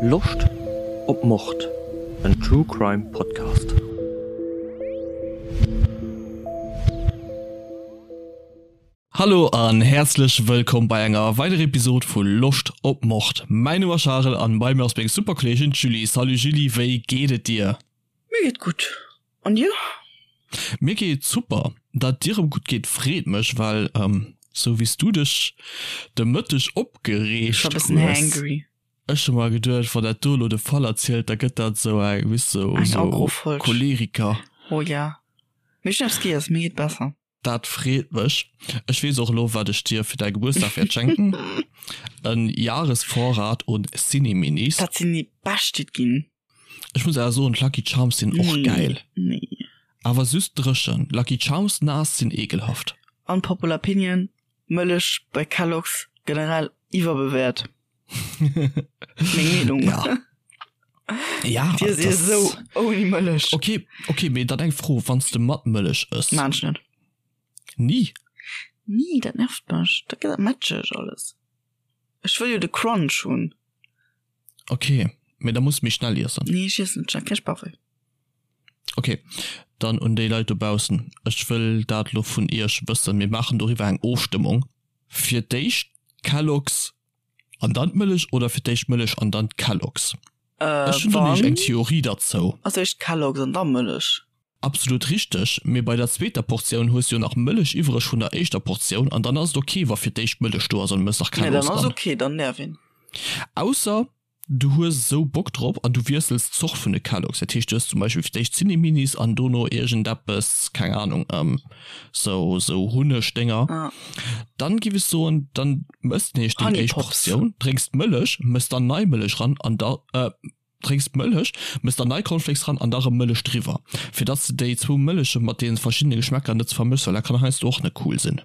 Loscht op Mord? En True Crime Podcast. Hallo an häerzlech wëllkomm bei enger weiderer Episode vu Loscht op Mord. Mäin Numm ass Charel an bei mir ass meng super Kolleegin d'Julie. Salut Julie, wéi geet et dir? Mir geet gutt, an dir? Mir geet super. Dat dir erëm gutt geet freet mech, well sou wéi s du dech de Mëtteg opgereegt hues, ech hu mer geduecht, wann dat do elo de Fall erzielt, da gëtt dat sou eng, weess sou sou Choleriker. Oh ja, mee ech hunn eppes giess, mir geet besser. Dat freet mech. Ech weess och elo wat ech dir fir däi Gebuertsdag wäert schenken, en Jahresvorrat un Cineminis. Dat sinn déi bescht déi et ginn. Ech muss awer soen d'Lucky Charms sinn och gäil. Nee. Awer süss dréchen. Lucky Charms naass sinn ekelhaft. Unpopular opinion, Mëllech bei Kellogg's generell iwwerbewäert. Meng Meenung. Ja. Ja, Dir si esou ouni Mëllech. Okay, okay, mee dann eng Fro, wann s de mat Mëllech ëss? Maan ech net. Ni? Ni, dat nervt mech. Dat gëtt dat matscheg alles. Ech wëll jo de Crunch hunn. Okay, mee da muss méi schnell iessen. Nee, ech iessen net schnell, keng Bauchwéi. Okay, dann un déi Leit dobaussen, ech wëll dat lo vun iech wëssen, mir maachen doriwwer eng Ofstëmmung. Fir d'éischt Kellogg's an dann d'Mëllech oder fir d'éischt Mëllech an dann d'Kellogg's? Ech hunn do nämlech eng Theorie derzou. Als éischt Kellogg's an da Mëllech. Absolut richteg, mee bei der zweeter Portioun hues du jo nach Mëllech iwwreg vun der éischter Portioun an dann ass et ok wa fir d'éischt Mëllech do ass an du mëss nach Nee, Kellogg's dann ass dran. ok, dann däerf een. Ausser Du hues esou Bock drop an du wiessels d'Zort vun de Kellogg's. Dat heescht, du hues zum Beispill fir d'éischt Zinni-Minis an dono iergendeppes, keng Ahnung, sou, sou Hunneg-Dénger. Dann giff ech soen, dann mëss de nämlech deng éischt Portioun, drénks d'Mëllech, mëss dann nei Mëllech ran an da, drénks d'Mëllech, mëss dann nei Cornflakes ran an da rëm Mëllech driwwer, fir dass de déi zwou Mëlleche mat deene verschiddene Geschmäcker net vermëschs, well dat kann heiansdo och net cool sinn.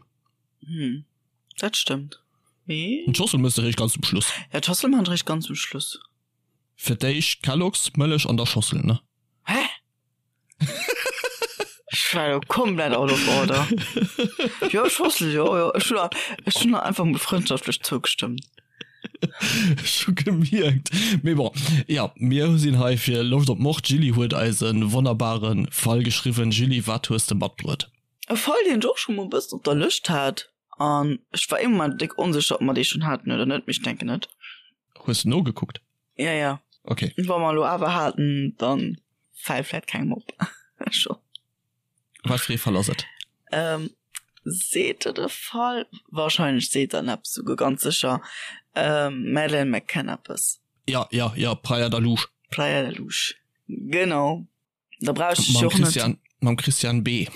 Dat stëmmt. Mee. D'Schossel mëss de réischt ganz zum Schluss. Ja, d'Schossel man ech réischt ganz zum Schluss. Fir d'éischt Kellogg's, Mëllech an da Schossel, ne? Hä? Ech war jo komplett out of order. Jo, Schossel, jo, jo. Ech hunn ech hunn einfach mol frëndschaftlech zougestëmmt. Ech hu gemierkt. Mee bon, ja, mir sinn hei fir Loscht op Mord. D'Julie huet eis e wonnerbare Fall geschriwwen. Julie, wat hues de matbruet? E Fall, deen ech och scho mol e bëssen op der Lëscht hat. An ech war ee Moment déck onsécher, ob mer dee schonn haten oder net, mee ech denken net. Hues de nogekuckt? Ja, ja. Okay. Wa mer elo awer haten, dann fält vläit kengem op. Scho. Wat fir ee Fall ass et? Ähm, seet der de Fall? Wahrscheinlech seet der en eppes, souguer ganz sécher. Ähm, Madeleine McCann eppes. Ja, ja, ja, Praia da Luz. Praia da Luz, genau. Da brauch ich Mam Christian, mam Christian B.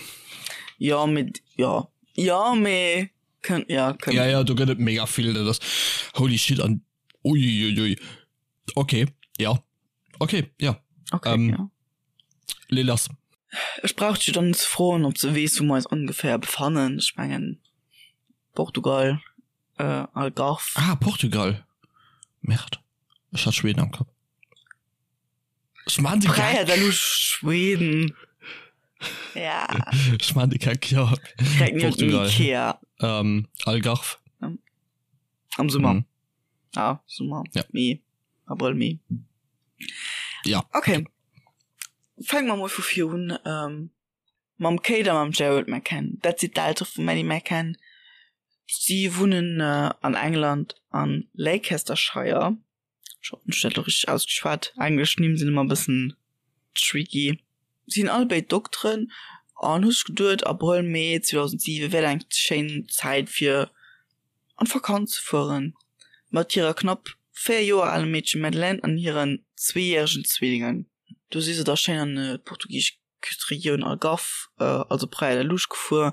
Ja, mit, ja. Ja, mee, kënnt, ja, kënnt. Ja, ja, do gëtt et mega vill, dat ass, holy shit, an uiuiui. Okay, ja. Okay, ja. Okay, ähm, ja. Lee lass. Ech brauch dech dann net ze froen, ob s de weess, wou mer eis ongeféier befannen. Ech mengen, Portugal, äh, Algarve. Ah, Portugal. Merde. Ech hat Schweden am Kapp. Ech man de Geck. Da lu Schweden. Ja. Ech man de Geck, ja. Portugal. Ikea. Ähm, Algarve. Am Summer. Mhm. Ah, Summer. Ja. Mee. Abrëll, Mee. Ja. Okay. Fänke mer mol vu vir un. Ähm, mam Kate a mam Gerald McCann. Dat si d'Eltere vum Maddie McCann. Si wunnen äh, an England an Leicestershire. Ech hoffen ech hunn dat elo richteg ausgeschwat. Englesch Nimm sinn ëmmer e bëssen tricky. Si sinn all béid Dokteren an hu sech geduet, Abrëll, Mee 2007 wär eng schéin Zäit fir an d'Vakanz ze fueren mat hirer knapp 4 Joer alem Meedche Madeleine an hiren zweejäregen Zwillingen. Do si se da schéin an d'portugisesch Küsteregioun Algarve, also Praia da Luz gefuer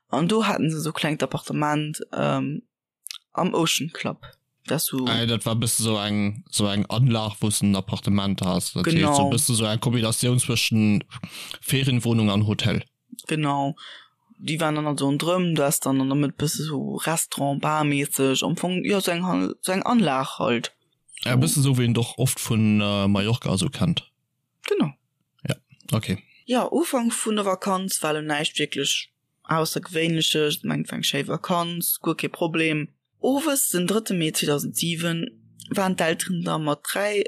an do haten se esou klengt Appartement. Am Ocean Club. Dat so. Äh, dat war bësse sou eng sou eng Anlag, wou s de en Appartement has. Dat heescht Genau. sou bësse sou eng Kombinatioun zwëschen Ferienwohnung an Hotel. Genau. Déi waren dann also ronderëm, du has dann an der Mëtt bësse sou Restaurant, Bar-mässeg, am Fong, jo, sou eng Hal, sou eng Anlag halt. Ja, bësse sou wéi een et och oft vun Mallorca a sou kennt. Genau. Ja, okay. Jo, Ufank vun der Vakanz war lo näischt wierklech Aussergewéinleches, ech mengen et war eng schéi Vakanz, guer kee Problem. Owes den drëtte Mee 2007. waren d'Elteren da mat 3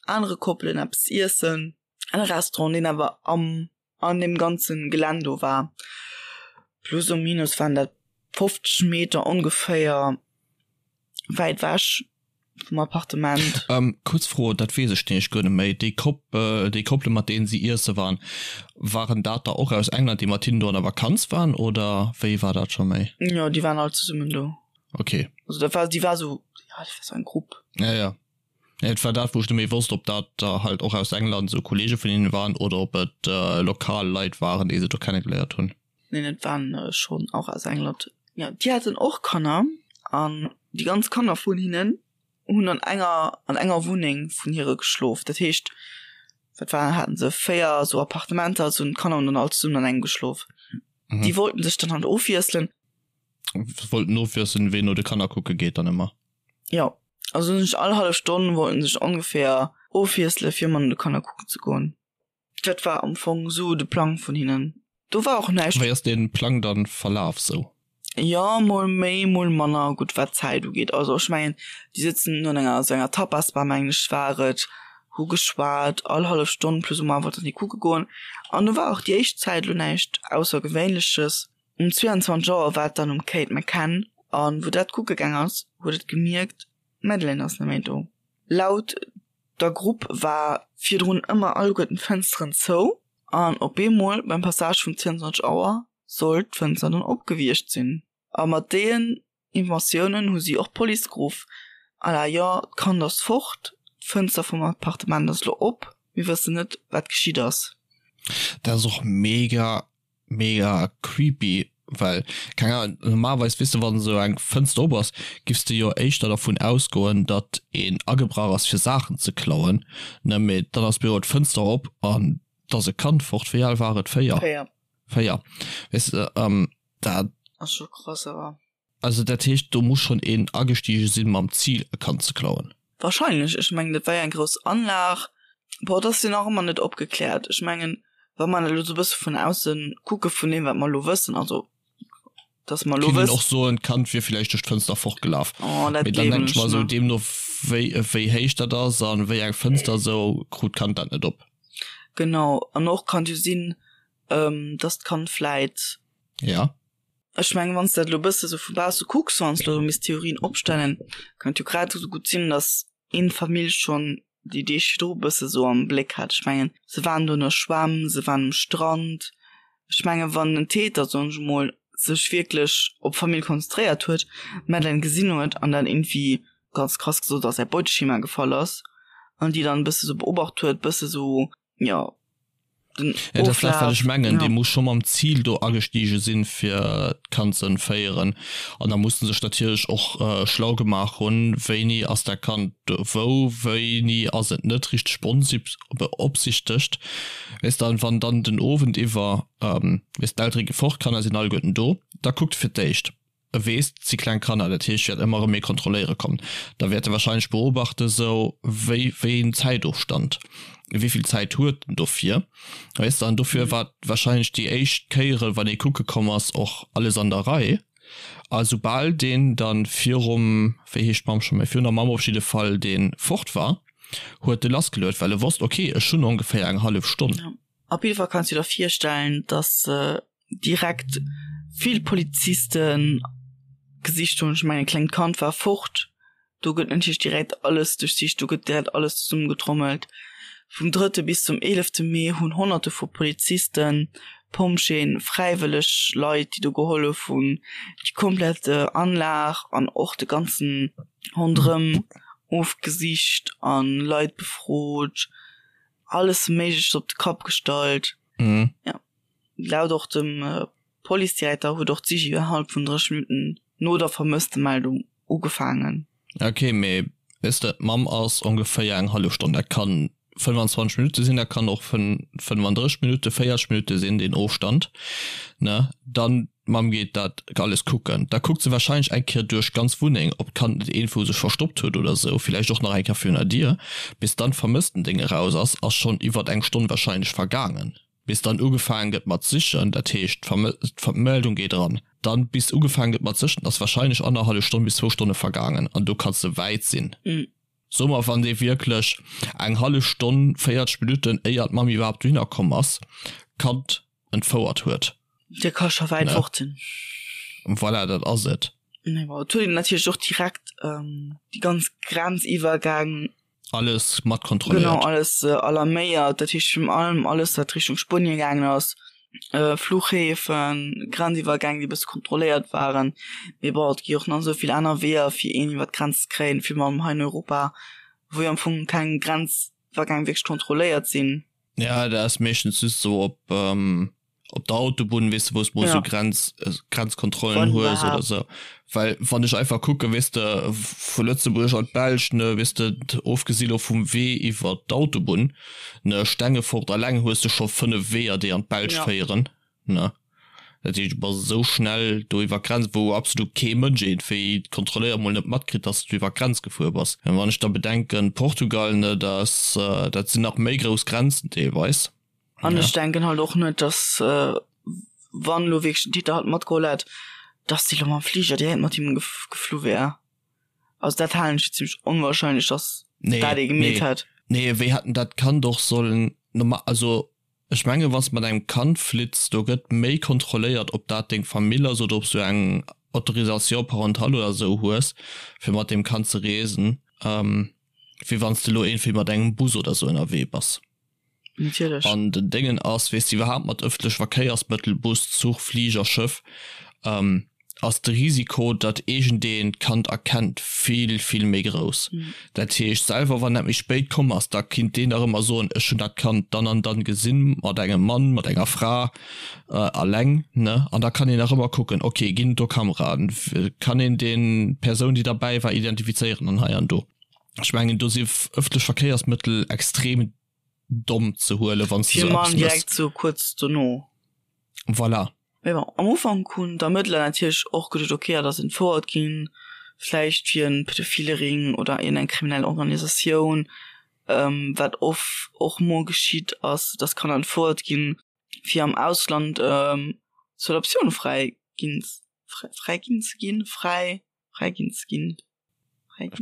anere Koppelen eppes iessen an e Restaurant, deen awer am an deem ganze Gelänn do war. Plus ou minus waren dat 50 Meter ongeféier wäit ewech vum Appartement. Ähm, kuerz Fro, dat weess ech nämlech guer net méi, déi Kopp, déi Koppele mat deenen si iesse waren, waren dat der och aus England, déi mat hinnen do an der Vakanz waren oder wéi war dat scho méi? Jo, déi waren all zesummen do. Okay. Also dat war, déi war sou, ja, dat war sou eng Grupp. Ja, ja. Et war dat, wou ech net méi wosst, ob dat der halt och aus England sou Kollege vun hinnen waren oder ob et lokal Leit waren, déi se do kennegeléiert hunn. Neen, et waren schonn och aus England. Jo, déi haten och Kanner an déi ganz Kanner vun hinnen hunn an enger an enger Wunneng vun hire geschlof. Dat heescht, wat war, haten se 4 sou Appartementer, sou hunn d'Kanner hunn dann all zesummen an engem geschlof. Déi wollten sech dann halt ofwiesselen. Wollten ofwiesselen, ween no de Kanner kucke geet dann ëmmer? Jo, also hunn sech all hallef Stonn wollten sech ongeféier ofwiessele fir ëmmer no de Kanner kucken ze goen. Dat war am Fong sou de Plang vun hinnen. Do war och näischt. Wéi ass dee Plang dann verlaf sou? Jo, mol méi, mol manner gutt wat d'Zäit ugeet. Also ech mengen, déi sëtzen an enger sou enger Tapas-Bar mengen ech war et, hu geschwat, all hallef Stonn plus ou moins wollten déi kucke goen. An do war och déi éischt Zäit elo näischt Aussergewéinleches. Um 22 Auer war et dann um Kate McCann an wou dat kucke gaang ass, huet et gemierkt, d'Madeleine ass net méi do. Laut der Grupp war virdrun ëmmer alleguerten d'Fënsteren zou an op eemol beim Passage vun 22 Auer sollt d'Fënster dann op gewiescht sinn. A mat deenen Informatiounen hu si och d'Police geruff, à la jo, d'Kand ass fort, d'Fënster vum Appartement ass elo op, mir wëssen net wat geschitt ass. Dat ass och mega mega creepy, well keng Ahnung, normalerweis weess de wann esou eng Fënster op ass, giffs de jo éischter dervun ausgoen datt een agebrach ass fir Saachen ze klauen, ne, mee dann ass blo d'Fënster op an 't ass e Kand fort. Wéi al war et? 4? 4. 4, weess de, dat. Ass scho krass awer. Also dat heescht do muss schonn een agestige sinn mam Zil e Kand ze klauen. Wahrscheinlech, ech mengen dat war jo eng grouss Anlag. Bon, et ass jo nach ëmmer net opgekläert. Ech mengen wa mer elo sou e bësse vun ausse kucke vun deem wat mer elo wëssen, also dass mer elo Kinnt een och soen d'Kand wier villäicht duerch d'Fënster fortgelaf. Oh dat Mee dann gleewen denken ech ech mer esou net. deemno wéi wéi héich dat ass an wéi eng Fënster esou krut d'Kand dat net op. Genau, an och kann et jo sinn dass d'Kand vläit. Ja. Ech mengen, wann s de dat elo e bësse sou vu bausse kucks, wann s de elo misst Theorien opstellen, kann et jo grad esou gutt sinn, datt een d'Famill schonn déi Deeg virdru e bësse sou am Bléck hat. Ech mengen, se waren do an der Schwämm, se waren um Strand. Ech mengen, wann den Täter, soen ech emol, sech wierklech op d'Famill konzentréiert huet, d'Madeleine gesinn huet an dann iergendwéi, ganz krass gesot, a säi Beuteschema gefall ass an déi dann e bësse sou beobacht huet, bësse sou, jo, den Ja, dat ass dat, wat ech mengen. Ja. Dee muss scho mam Zil do agestige sinn, fir d'Kand ze entféieren. An da muss en sech natierlech och schlau gemaach hunn, wéini ass dat Kand do wou, wéini ass et net richteg beopsichtegt. Weess de, an wann dann den Owend iwwer, weess, d'Eltere gi fort, d'Kanner sinn alleguerten do, da kuckt fir d'éischt, E weess, 't si kleng Kanner, dat heescht, wäert ëmmer erëm ee kontrolléiere kommen. Da wäert e wahrscheinlech beobachten, sou wéi, wéi een Zäitofstand, wéi vill Zäit huet en dofir, weess de. An dofir war wahrscheinlech déi éischt Kéiere, wann ee kucke komm ass, och alles an der Rei. A soubal deen da virum, wéi heescht d'Mamm scho méi, virun der Mamm op jidde Fall, dee fort war, huet e lassgeluet, well e wosst, okay, ech hunn ongeféier eng hallef Stonn. Op jidde Fall kanns du der virstellen, dass direkt vill Polizisten gesicht hunn. Ech mengen, e klengt Kand war fort, do gëtt natierlech direkt alles duerchsicht, do gëtt direkt alles zesummegetrommelt. Vum drëtte bis zum eelefte Mee hunn Honnerte vu Polizisten, Pompjeeën, fräiwëlleg Leit, déi do gehollef hunn, déi komplett Anlag an och de ganzen Ronderëm ofgesicht a Leit befrot, alles Méigleches op de Kapp gestallt. Ja. Laut och dem Policedirekter huet och d'Sich innerhalb vun 30 Minutten no der Vermësstemeldung ugefaangen. Ok, mee weess de, d'Mamm ass ongeféier eng hallef Stonn, dat kann 25 Minutte sinn, dat kann och 35 Minutte, 40 Minutte sinn, deen Ofstand, ne? Dann d'Mamm geet dat alles kucken, da kuckt se warscheinlech eng Kéier duerch d'ganz Wunneng, ob d'Kand net iergendwou sech verstoppt huet oder esou, villäicht och nach eng Kéier virun der Dier. Bis dann d'Vermësstendéng eraus ass, ass schonn iwwert eng Stonn warscheinlech vergaangen. Bis dann ugefaangen gëtt mat sichen, dat heescht d'Meldung geet eran, dann bis ugefaangen gëtt mat sichen, ass wahrscheinlech annerhallef Stonn bis zwou Stonne vergaangen an do kanns de wäit sinn. Soe mer, wann dee wierklech eng hallef Stonn, 40 Minutten éier d'Mamm iwwerhaapt dohinner komm ass, d'Kand entfouert huet. Dee ka scho wäit fort sinn. Voilà, dat ass et. Mee bon, et huet een natierlech och direkt déi ganz Grenziwwergäng Alles mat kontrolléiert. Genau, alles alarméiert. Dat heescht virun allem alles, wat Richtung Spuenien gaangen ass, Fluchhäfen, Grenziwwergäng, déi e bësse kontrolléiert waren. Mee bon, et gi och nach esou vill aner Weeër, fir een iwwer d'Grenz ze kréien, virun allem hei in Europa, wou jo am Fong keng Grenziwwergäng wierklech kontrolléiert sinn. Ja, dat ass meeschtens just esou op op der Autobunn, weess de, wou s mol sou Grenz, Grenzkontrollen hues oder sou. Well wann ech einfach kucken, weess de, vu Lëtzebuerg an d'Belsch, ne, weess de, ofgesi lo vum Wee iwwer d'Autobunn, ne, Stengefort alleng hues de scho 5 Weeër, déi an d'Belsch féieren, ne. Dat heescht, du bass esou schnell do iwwer d'Grenz, wou absolut kee Mënsch iergendwéi kontrolléiert, mol net matkritt, dass du iwwer d'Grenz gefuer bass. Wann ech da bedenken, Portugal, ne, dat, dat sinn nach méi grouss Grenzen deelweis. An ech denken halt och net, dass wann elo wierklech den Täter halt matgeholl hätt, dass déi elo mam Fliger direkt mat him geflu wär. Also dat halen ech fir zimmlech onwahrscheinlech, dass dat ee gemeet hätt. Nee, wéi hätt en dat Kand och sollen normal, also ech mengen, wann s de mat engem Kand flitts, do gëtt méi kontrolléiert, ob dat deng Famill ass oder ob s du eng Autorisation parentale oder esou hues, fir mat deem Kand ze reesen, wéi wann s de elo iergendwéi mat engem Bus oder esou ënnerwee bass. Natierlech. An den Déngen ass, weess de, iwwerhaapt mat ëffentleche Verkéiersmëttel, Bus, Zuch, Fliger, Schëff, ass de Risiko, datt iergendeen d'Kand erkennt, vill, vill méi grouss. Dat heescht, selwer wann dat méi spéit komm ass, da kinnt deen nach ëmmer soen, ech hunn dat Kand dann an dann gesinn, mat engem Mann, mat enger Fra, alleng, ne? An da kann een nach ëmmer kucken, okay, ginn et do Kameraen, kann een deen, d'Persoun, déi derbäi war, identifizéieren an hei an do. Ech mengen do si ëffentlech Verkéiersmëttel extrem domm ze huelen, wann s de sou eppes méchs. Direkt sou kuerz dono. Voilà. Mee bon, am Ufank hunn d'Ermëttler natierlech och geduet, ok, dat ass entfouert ginn, vläicht fir en pedophile Ring oder iergendeng kriminell Organisatioun, wat oft och mol geschitt ass, dass Kanner entfouert ginn, fir am Ausland zur Adoptioun fräi ginn, fräi ginn ze ginn, fräi, fräi ginn ze ginn.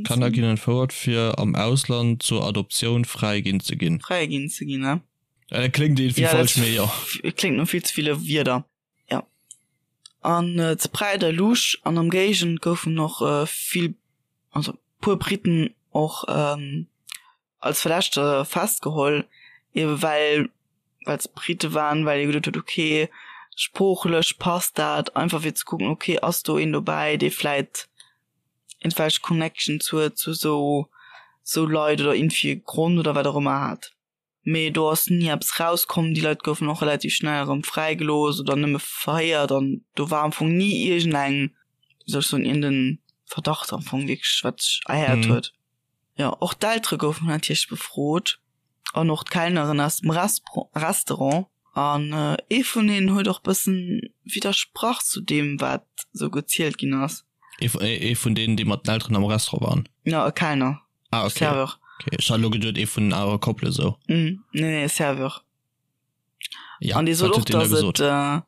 Kanner ginn entfouert fir am Ausland zur Adoptioun fräi ginn ze ginn. Fräi ginn ze ginn, ne? Dat kléngt iergendwéi falsch, mee jo. Kléngt no vill ze ville Wierder, jo. An zu Praia da Luz an am Géigend goufen och vill, also puer Briten och als Verdächteger festgeholl, ebe well well se Brite waren, well ee geduet huet, okay, sproochlech passt dat, einfach fir ze kucken, okay, ass do een dobäi, dee vläit iergendwelch Connections huet zu esou esou Leit oder iergendwéi e Grond oder wat och ëmmer hat. Mee do ass ni eppes rauskomm, déi Leit goufen och relativ schnell erëm fräigelooss oder nëmme verhéiert an do war am Fong ni iergendeng, wéi soll ech soen, iergenden Verdacht am Fong wierklech, wat sech erhäert huet. Jo, och d'Eltere goufen natierlech befrot an och d'Kellneren aus dem Restaurant. An ee vun hinnen huet och bëssen widdersprach zu deem, wat esou gezielt ginn ass. Ee vun deenen, déi mat den Elteren am Restaurant waren? Jo, e Kellner. Ah, okay. Serveur. Okay, ech hat elo geduet, ee vun den anere Koppele sou. Nee, nee, Serveur. Ja, An dee sot wat och, huet deen da dass gesot? et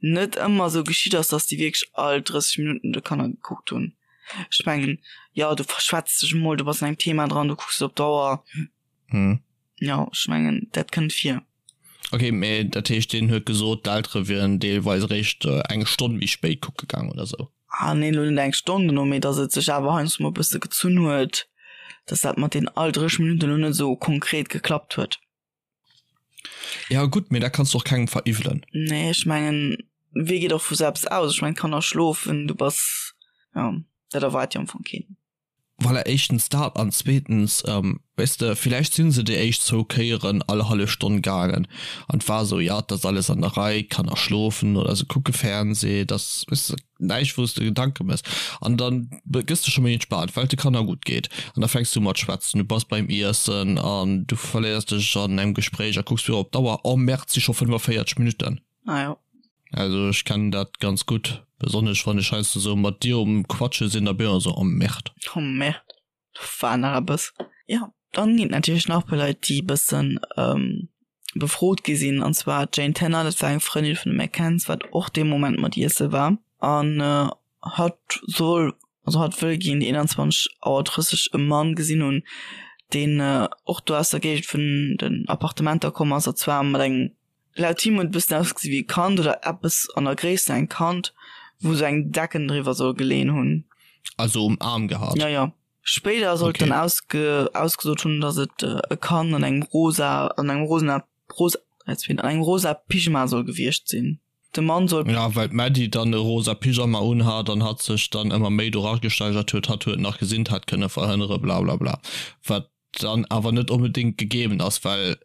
net ëmmer esou geschitt ass, dass déi wierklech all 30 Minutten de Kanner gekuckt hunn. Ech mengen, jo, du verschwätz dech emol, du bass an engem Thema dran, du kucks op d'Auer. Hm. Jo, ech mengen, dat kënnt vir. Okay, mee dat heescht, deen huet gesot, d'Eltere wieren deelweis eréischt eng Stonn méi spéit kucke gaang oder sou? Ah nee, elo net eng Stonn dono, mee dass et sech awer heiansdo mol e bësse gezunn huet, dass dat mat deenen all 30 Minutten elo net esou konkret geklappt huet. Ja gutt, mee dat kanns du och kengem veriwwelen. Nee, ech mengen, wee geet och vu selbst aus? Ech mengen, d'Kanner schlofen, du bass, jo, dat erwaart jo am Fong keen. Voilà, éischtens dat an zweetens, weess de, villäicht si se déi éischt zwou Kéieren all hallef Stonn gaangen an et war esou, jo, et ass alles an der Rei, d'Kanner schlofen oder se kucke Fernseh, et ass, weess de, näischt wou s de Gedanke méchs an da gëss de scho méi entspaant, well et de Kanner gutt geet an da fänks du u mat schwätzen, du bass beim Iessen an du verléiers dech an engem Gespréich a kucks du op d'Auer, oh Merde, et si scho 45 Minutten. Ah jo. Also ech kennen dat ganz gutt, besonnesch wann ech heiansdo sou mat dir um quatsche sinn, da bin ech ëmmer sou, oh Merde. Oh Merde, do war nach eppes. Jo, dann ginn et natierlech nach e puer Leit, déi e bëssen. befrot gi sinn, an zwar d'Jane Tanner, dat war eng Frëndin vun de McCanns, wat och dee Moment mat iesse war, an hatt soll, also hatt wëll géint 21 Auer 30 e Mann gesinn hunn, deen och do aus der Géigend vun den Appartementer komm ass, a zwar mat engem, laut him huet et e bëssen ausgesi wéi e Kand oder eppes an der Gréisst vun engem Kand, wou sou eng Decken driwwer soll geleeën hunn. Also um Aarm gehat? Jo, jo. Spéider soll et Okay. dann ausge ausgesot hunn, datt et e Kand an engem rosa, an engem rosena, rosa, an engem rosa Pyjama soll gewiescht sinn. De Mann soll. Ja, well d'Maddie dann e rosa Pyjama unhat an hatt sech dann ëmmer méi do ragesteigert huet, hatt huet nach gesinn, d'hätt kënne verhënnere blablabla. Wat dann awer net onbedéngt gegeeben ass, well,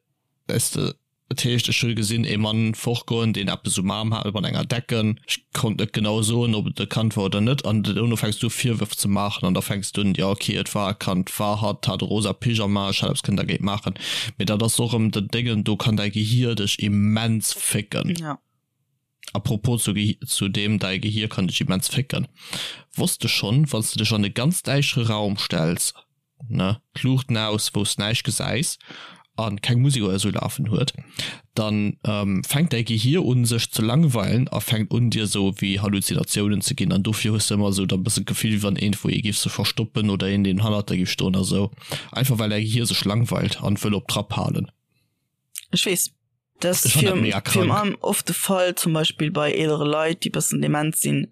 weess de, et heescht, ech hu gesinn ee Mann fortgoen, deen eppes um Aarm hat mat enger Decken, ech konnt net genau soen, ob et e Kand war oder net, an dono fänks du u Virwërf ze maachen an da fänks du un, jo okay, et war e Kand, war hatt, hat e rosa Pyjama, ech hätt eppes kënnen dergéint maachen. Mee dat ass och erëm den Déngen, do kann däi Gehier dech immens fécken. Ja. A propos zu Gehi zu deem, däi Gehier kann dech immens fécken. Wosst de schonn, wann s de dech an e ganz däischere Raum stells, ne, d'Luuchten aus, wou s näischt gesäis an keng Musek oder esou lafen huet, dann fänkt däi Gehier un sech ze langweilen a fänkt un dir esou wéi Halluzinatiounen ze ginn an dofir hues de ëmmer esou da bëssen d'Gefill wéi wann iergendwou ee giff sech verstoppen oder een deen hannert der giff stoen a sou, einfach well däi Gehier sech langweilt an wëll op Trapp halen. Ech weess. Dat ass Ech fann dat virun mega virun krank. allem oft de Fall zum Beispill bei eelere Leit déi bëssen dement sinn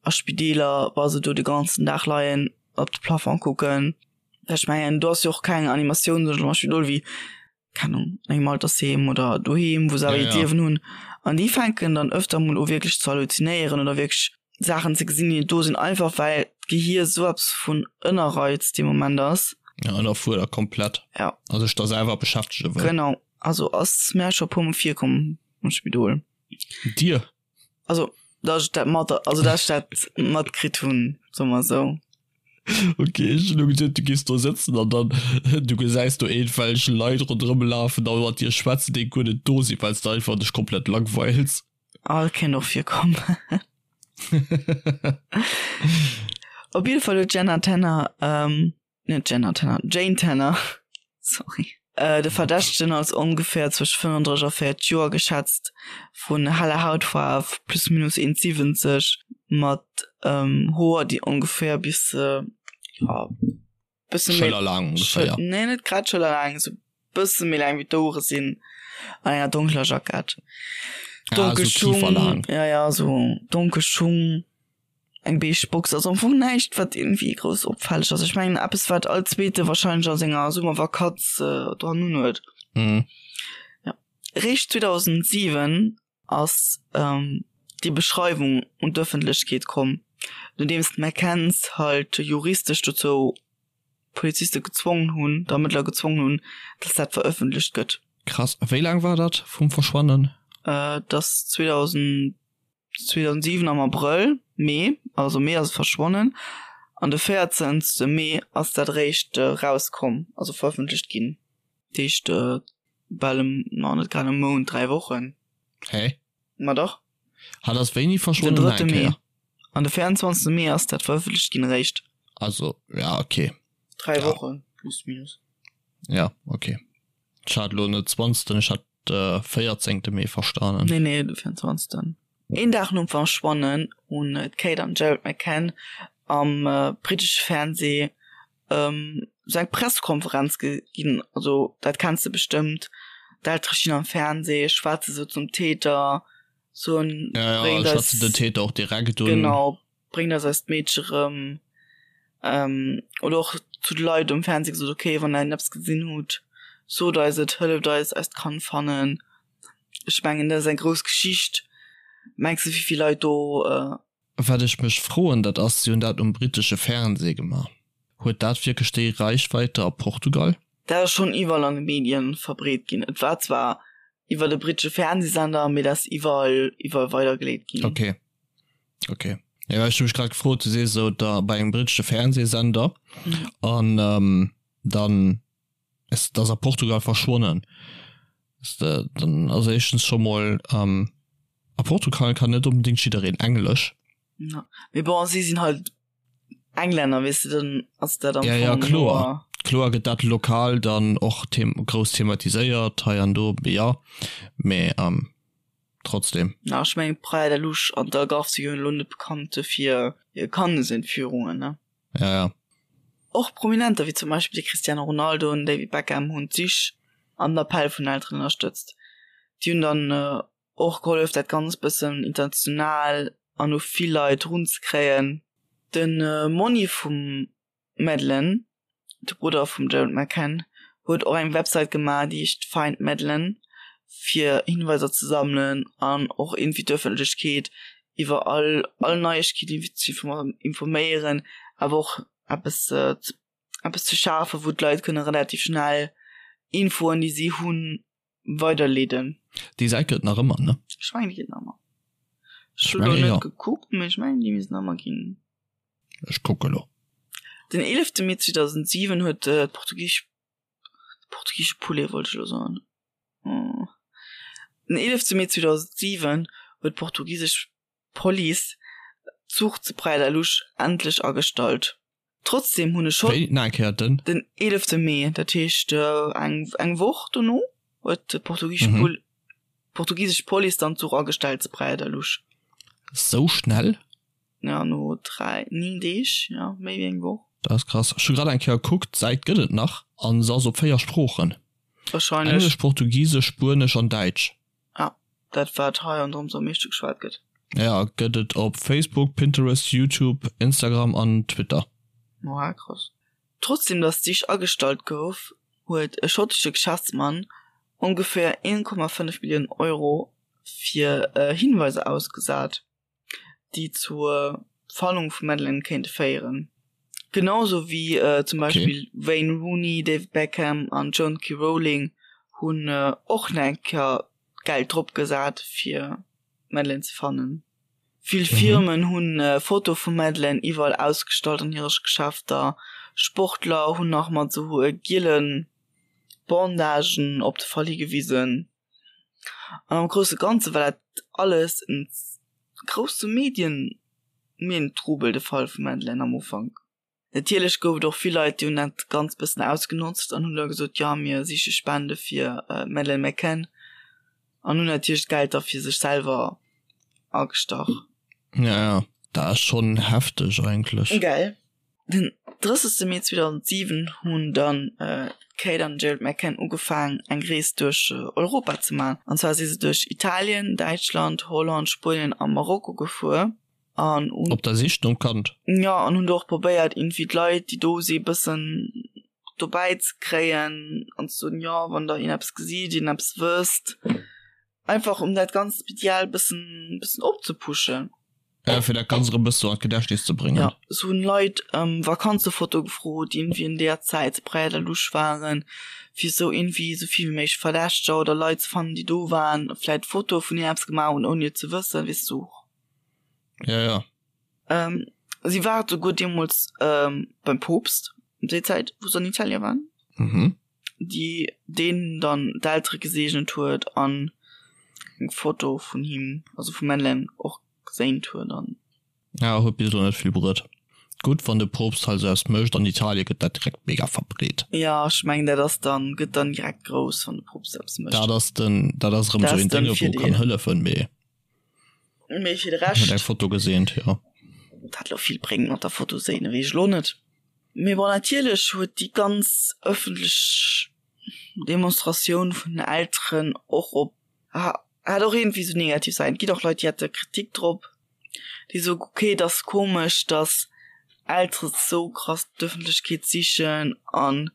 a Spideeler, wa se do de ganzen Dag leien, op de Plafond kucken. Ech mengen do ass jo och keng Animatioun sou am Spidol wéi, keng Ahnung, an engem Altersheem oder doheem, wou se awer Ja, hiert ja. Liewen hunn. An déi fänken dann ëfter mol u wierklech ze halluzinéieren oder wierklech Saachen ze gesinn, déi net do sinn, einfach well d'Gehier sou eppes vun ënnerreizt dee Moment ass. Ja, ënnerfuerdert komplett. Ja. A sech da selwer beschäftege wëll. Genau. Also ass mär scho puer mol virkomm am Spidol. Dir? Also dass ech dat mat, also dass ech dat matkritt hunn, soe mer esou. Ok, ech hunn elo geduet, du géifs do sëtzen an dann du gesäis do iergendwelch Leit ronderëm lafen a mat dir schwätzen, déi guer net do sinn, well s de einfach dech komplett langweils. Ah, dat kéint och virkommen. Op jidde Fall huet d'Jenna Tanner, net Jenna Tanner, Jane Tanner, sorry, de Verdächtegen als ongeféier zwësche 35 a 40 Joer geschätzt, vun heller Hautfaarf, plus minus 1,70, mat Hoer, déi ongeféier bis, ja, bësse méi. Schëllerlaang ongeféier. Nee, net grad schëllerlaang, esou bësse méi laang wéi d'Ouere sinn, an enger donkeler Jackett. Donkel ah, so Schung, ja, ja, so donkel Schung, eng beige Box, also am Fong näischt, wat irgendwie grouss opfälleg ass. Ech mengen eppes, wat all Zweete wahrscheinlech a senger Summervakanz äh, dran un huet. Mhm. Ja. Réischt 2007 ass ähm, déi Beschreiwung un d'Ëffentlechkeet komm, nodeems d'McCanns halt juristesch dozou d'Poliziste gezwongen hunn, d'Ermëttler gezwongen hunn, dass dat verëffentlecht gëtt. Krass. Wéi laang war dat vum Verschwannen? Äh, dass 2000, 2007 am Abrëll, Mee, also Mee ass et verschwonnen, an de 14. Mee ass dat eréischt rauskomm, also verëffentlecht ginn. Dat heescht bal e, ma net grad e Mount, 3 Wochen. Hä? Ma dach. Hat ass wéini Den verschwonnen? drëtte Eng Mee. Kéier. An de 24. Mee ass dat verëffentlecht ginn eréischt. Also, ja, okay. 3 Ja. Wochen, plus minus. Ja, okay. Ech hat elo net 20., ech hat de 14. Mee verstanen. Nee, nee, de 24. Een Dag nom Verschwannen hunn d'Kate an Gerald McCann am brittesche Fernsee sou eng Pressekonferenz ginn, also dat kenns de bestëmmt, d'Eltere stinn am Fernsee, schwätze sou zum Täter, soen, Ja, ja, bréngt eis, schwätzen den Täter och direkt un. genau, bréngt eis eist Meedche rëm, oder och zu de Leit um Fernsee gesot, okay, wann der eppes gesinn hutt, sot eis et, hëlleft eis, eist Kand fannen. Ech mengen, dat ass eng grouss Geschicht. Mengs de, wéi vill Leit do. Wat ech mech froen, dat ass, si hunn dat um brittesche Fernseh gemaach, huet dat wierklech déi Reichweite a Portugal? Dat ass schonn iwwerall an de Medien verbreet ginn. Et war zwar iwwer e brittesche Fernsehsender, mee dat ass iwwerall, iwwerall weidergeleet ginn. Ok, ok. Jo, well ech hu mech grad gefrot, du sees esou da bei engem brittesche Fernsehsender an dann Es ass a Portugal verschwonnen. Dann also éischtens scho mol ähm, a Portugal kann net onbedingt jiddereen Englesch. Ja. Mee bon, si sinn halt Englänner, weess de, dann ass dat am Ja, ja, Fong kloer. nur. Kloer gëtt dat lokal dann och grouss thematiséiert hei an do, jo, mee trotzdem. Na, ech mengen Praia da Luz an d'Algarve si jo elo net bekannt fir hir Kandesentführungen, ne? Ja, ja. Och Prominenter wéi zum Beispill de Cristiano Ronaldo an David Beckham hunn d'Sich an den Appell vun den Elteren ënnerstëtzt. Déi hunn dann och gehollef dat Ganzt bëssen international an u vill Leit runzekréien. De Monni vum Madeleine, de Brudder vum Gerald McCann, huet och eng Website gemaach, déi heescht Find Madeleine, fir Hinweiser ze sammelen an och iergendwéi d'Ëffentlechkeet iwwer all all Neiegkeet iergendwéi ze informéieren, awer och eppes eppes ze schafen, wou d'Leit kënne relativ schnell Infoen, déi si hunn, weiderleeden. Déi Säit gëtt et nach ëmmer, ne? Ech mengen, déi gëtt nach ëmmer. Ech hunn elo net gekuckt, mee ech mengen, déi misst nach ëmmer ginn. Ech kucke lo. Den 11 Mee 2007 huet d'portugisesch portugiesche Poulet wollt ech elo soen. Den 11 Mee 2007 huet d'portugisesch Police d'Zuch zu Praia da Luz endlech agestallt. Trotzdem hunn e Schott. Wéi? Nach eng Kéier den? Den 11 Mee, dat heescht eng eng Woch dono, huet d'portugisesch mhm. Pol portugisesch Police dann d'Zuch agestellt zu Praia da Luz. Sou schnell? Ja, no 3, 9 Deeg, ja, méi wéi eng Woch. Dat ass krass. Ech hu grad eng Kéier gekuckt, d'Säit gëtt et nach an se ass op 4 Sproochen. Wahrscheinlech. Englesch, Portugisesch, Spuenesch an Däitsch. Ah, dat wat hei an drëms am meeschte geschwat gëtt. Ja, gëtt et op Facebook, Pinterest, YouTube, Instagram an Twitter. Oha, krass. Trotzdem datt d'Sich agestallt gouf, huet e schottesche Geschäftsmann ongeféier 1,5 Milliounen Euro fir Hinweiser ausgesat. déi zur Fannung vum Madeleine kéinte féieren. Genau sou wéi zum Beispill Wayne Rooney, David Beckham an Joan K. Rowling hunn och nach eng Kéier Geld drop gesat fir d'Madeleine ze fannen. Vill Firmen hunn Fotoe vum Madeleine iwwerall ausgestallt an hire Geschäfter. Sportler hunn nach mat sou giele Bandagen op de Fall higewisen. An am grousse Ganze war dat alles en grousse Medien Medientrubel, de Fall vum Madeleine am Ufank. Natierlech gouf et och vill Leit, déi hunn dat Ganzt bëssen ausgenotzt an hunn da gesot, jo mir siche Spende fir d'Madeleine McCann an hunn natierlech d'Geld da fir sech selwer agestach. Ja, ja, dat ass schonn hefteg eigentlech. Gell? Den 30 Mee 2007 hunn dann d'Kate an den Gerald McCann ugefaang eng Rees duerch Europa ze man. An zwar si se duerch Italien, Däitschland, Holland, Spuenien a Marokko gefuer an hunn. Op der Sich nom Kand? Jo, an hunn do och probéiert iergendwéi d'Leit déi do si bëssen dobäi ze kréien an ze soen, jo wann der iergendeppes gesitt, iergendeppes wësst. Einfach um dat ganzt medial bëssen bëssen opzepuschen. Ja, fir dat Ganzt erëm bëssen an d'Gedächtnis ze bréngen. Ja, se hunn Leit ëm Vakanzefotoe gefrot, déi iergendwéi an deeër Zäit zu Praia da Luz waren, fir esou iergendwéi esou vill wéi méiglech Verdächteger oder Leit ze fannen, déi do waren, vläit Fotoe vun hir eppes gemaach hunn, ouni et ze wëssen, weess du. Ja, ja. Ähm, si war souguer deemools ähm, beim Poopst, ëm déi Zäit, wou se an Italie waren. Mhm. déi deen dann d'Eltere geseegnet huet an eng Foto vun him, also vum Madeleine och geséint huet an. Ja, huet bis elo net vill bruet. Gutt, wann de Poopst hei sou eppes mécht, an Italie gëtt dat direkt mega verbreet. Ja, ech mengen dat ass dann, gëtt dann direkt grouss, wann de Poopst eppes mécht. Dat ass den, dat ass erëm sou een Dénge wou kann hëllefen, mee. Mee fir de Rescht. Huet eng Foto geseent, jo. Dat elo vill bréngt mat der Foto séinen, weess ech elo net. Mee bon, natierlech huet déi ganz ëffentlech Demonstratioun vun den Elteren och op, hat och iergendwéi sou negativ Säiten. Et ginn och Leit, déi hate Kritik drop, déi soen, ok, et ass komesch, datt Eltere sou krass d'Ëffentlechkeet sichen an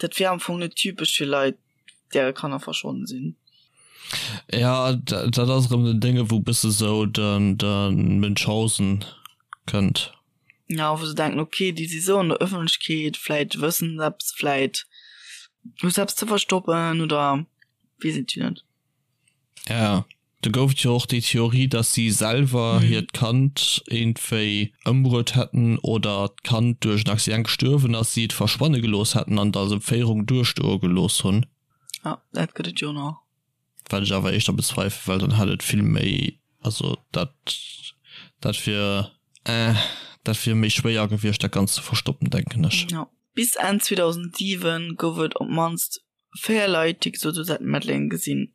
dat wier am Fong net typesch fir Leit, däre Kanner verschwonnen sinn. Ja, dat ass erëm den Dénge wou bësse sou den de Münchhausen kënnt. Ja, wou se denken, ok, déi si sou an der Ëffentlechkeet, vläit wëssen se eppes, vläit hu se eppes ze verstoppen oder weess et jo net. Ja. Do gouf et jo och déi Theorie, dass si selwer hiert Kand iergendwéi ëmbruet hätten oder d'Kand duerch en Accident gestuerwen ass, si et verschwanne gelooss hätten an et als Entféierung duerstoe gelooss hunn. Ja, dat gëtt et jo nach. Wat ech awer éischter bezweifelen, well dann hätt et vill méi, also dat, dat wier, eh, dat wier méi schwéier gewiescht dat Ganzt ze verstoppen, denken ech. Ja. Bis Enn 2007 gouf et op d'mannst 4 Leit, déi gesot hunn, se hätten d'Madeleine gesinn.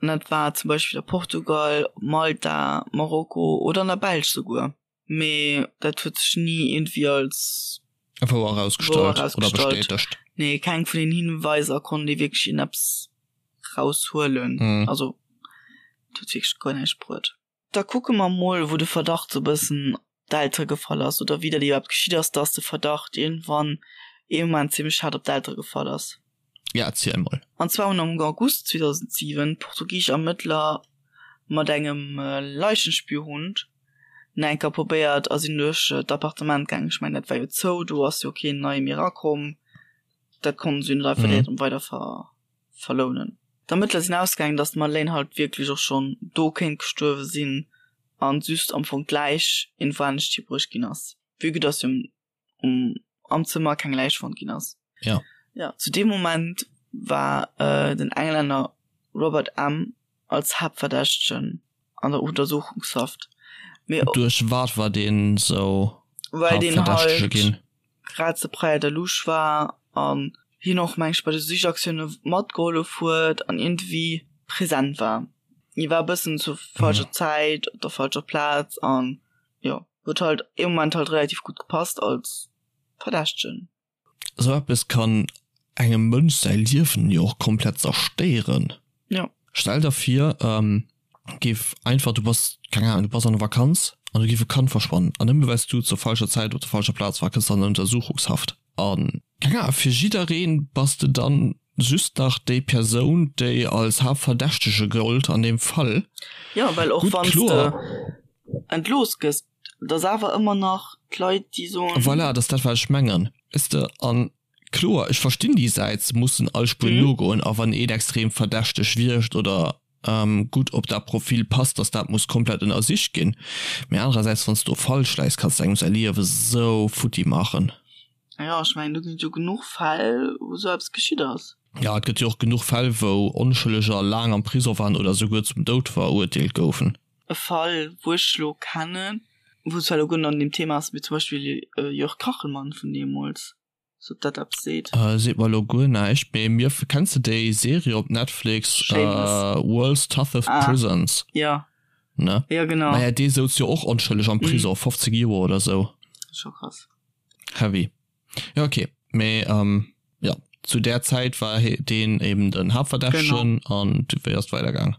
An dat war zum Beispill a Portugal, op Malta, Marokko oder an der Belsch souguer. Mee dat huet sech ni iergendwéi als Wouer erausgestallt oder bestätegt. Nee, keng vun den Hinweiser konnt ee wierklech iergendeppes raushuelen. Also dat huet wierklech guer näischt bruet. Da kucke mer mol, wou de Verdacht sou bëssen op d'Eltere gefall ass oder wéi dat iwwerhaapt geschitt ass, dass de Verdacht iergendwann ee Moment zimmlech haart op d'Eltere gefall ass. Ja, erziel mol. An zwar hunn am August 2007 portugisesch Ermëttler mat engem Leichenspürhund nach eng Kéier probéiert a sinn duerch d'Appartement gaangen. Ech mengen, dat war jo zou, do ass jo keen neie méi erakomm. Dat konnten se jo net einfach direkt erëm weider ver. Verlounen. D'Ermëttler sinn ausgaangen, datt d'Madeleine halt wierklech och schonn do kéint gestuerwe sinn an just am Fong d'Läich iergendwou anescht hibruecht ginn ass, vue que datt jo um am Zëmmer keng Läich fonnt ginn ass. Ja. Ja, zu deem Moment war den Englänner Robert M. als Haaptverdächtegen an der Untersuchungshaft. Mee Duerch wat war deen sou well deen Haaptverdächtege halt ginn? grad zu Praia da Luz war an hien och meng ech bei de Sichaktioune matgehollef huet an iergendwéi present war. Hie war e bëssen zur falscher Zäit op der falscher Plaz an jo huet halt ee Moment halt relativ gutt gepasst als Verdächtegen. Esou eppes kann engem Mënsch säi Liewen jo och komplett zerstéieren. Jo. Stell der vir, géif einfach, du bass, keng Ahnung, du bass an der Vakanz an do géif e Kand verschwannen an nëmme well s du zur falscher Zäit op der falscher Plaz war, kënns de an Untersuchungshaft an, keng Ahnung, fir jidderee bass de dann just nach déi Persoun, déi als Haaptverdächtege gëllt an deem Fall. Jo, well och wann s de entlooss gëss, et ass awer ëmmer nach d'Leit, déi soen. Voilà, et ass dat wat ech mengen, weess de. An kloer, ech verstinn déi Säit, se mussen all Spuer nogoen a wann een extrem verdächteg wierkt oder gutt op dat Profil passt, dass dat muss komplett ënnersicht ginn. Mee anerersäits, wann s du do falsch läis, kanns de engem säi Liewe sou futti maachen. Jo, ech mengen, do ginn et jo genuch Fäll, wou sou eppes geschitt ass. Jo, et gëtt jo och genuch Fäll, wou Onschëlleger laang am Prisong waren oder souguer zum Doud verurteelt goufen. E Fall, wou ech elo kennen, wou zwar elo guer net an deem Thema ass, mee zum Beispill Jörg Kachelmann vun deemools. Sou dat eppes seet. Seet mer elo guer näischt, mee mir, kenns de déi Serie op Netflix Shameless. World's Toughest Ah, Prisons? jo. Ne? Jo, genau. Maja, dee souz jo och onschëlleg am Prison, 15 Joer oder sou. Scho krass. Heavy. Jo, okay. Mee jo, zu där Zäit war deen eben den Haaptverdächtegen an wéi ass et weidergaang?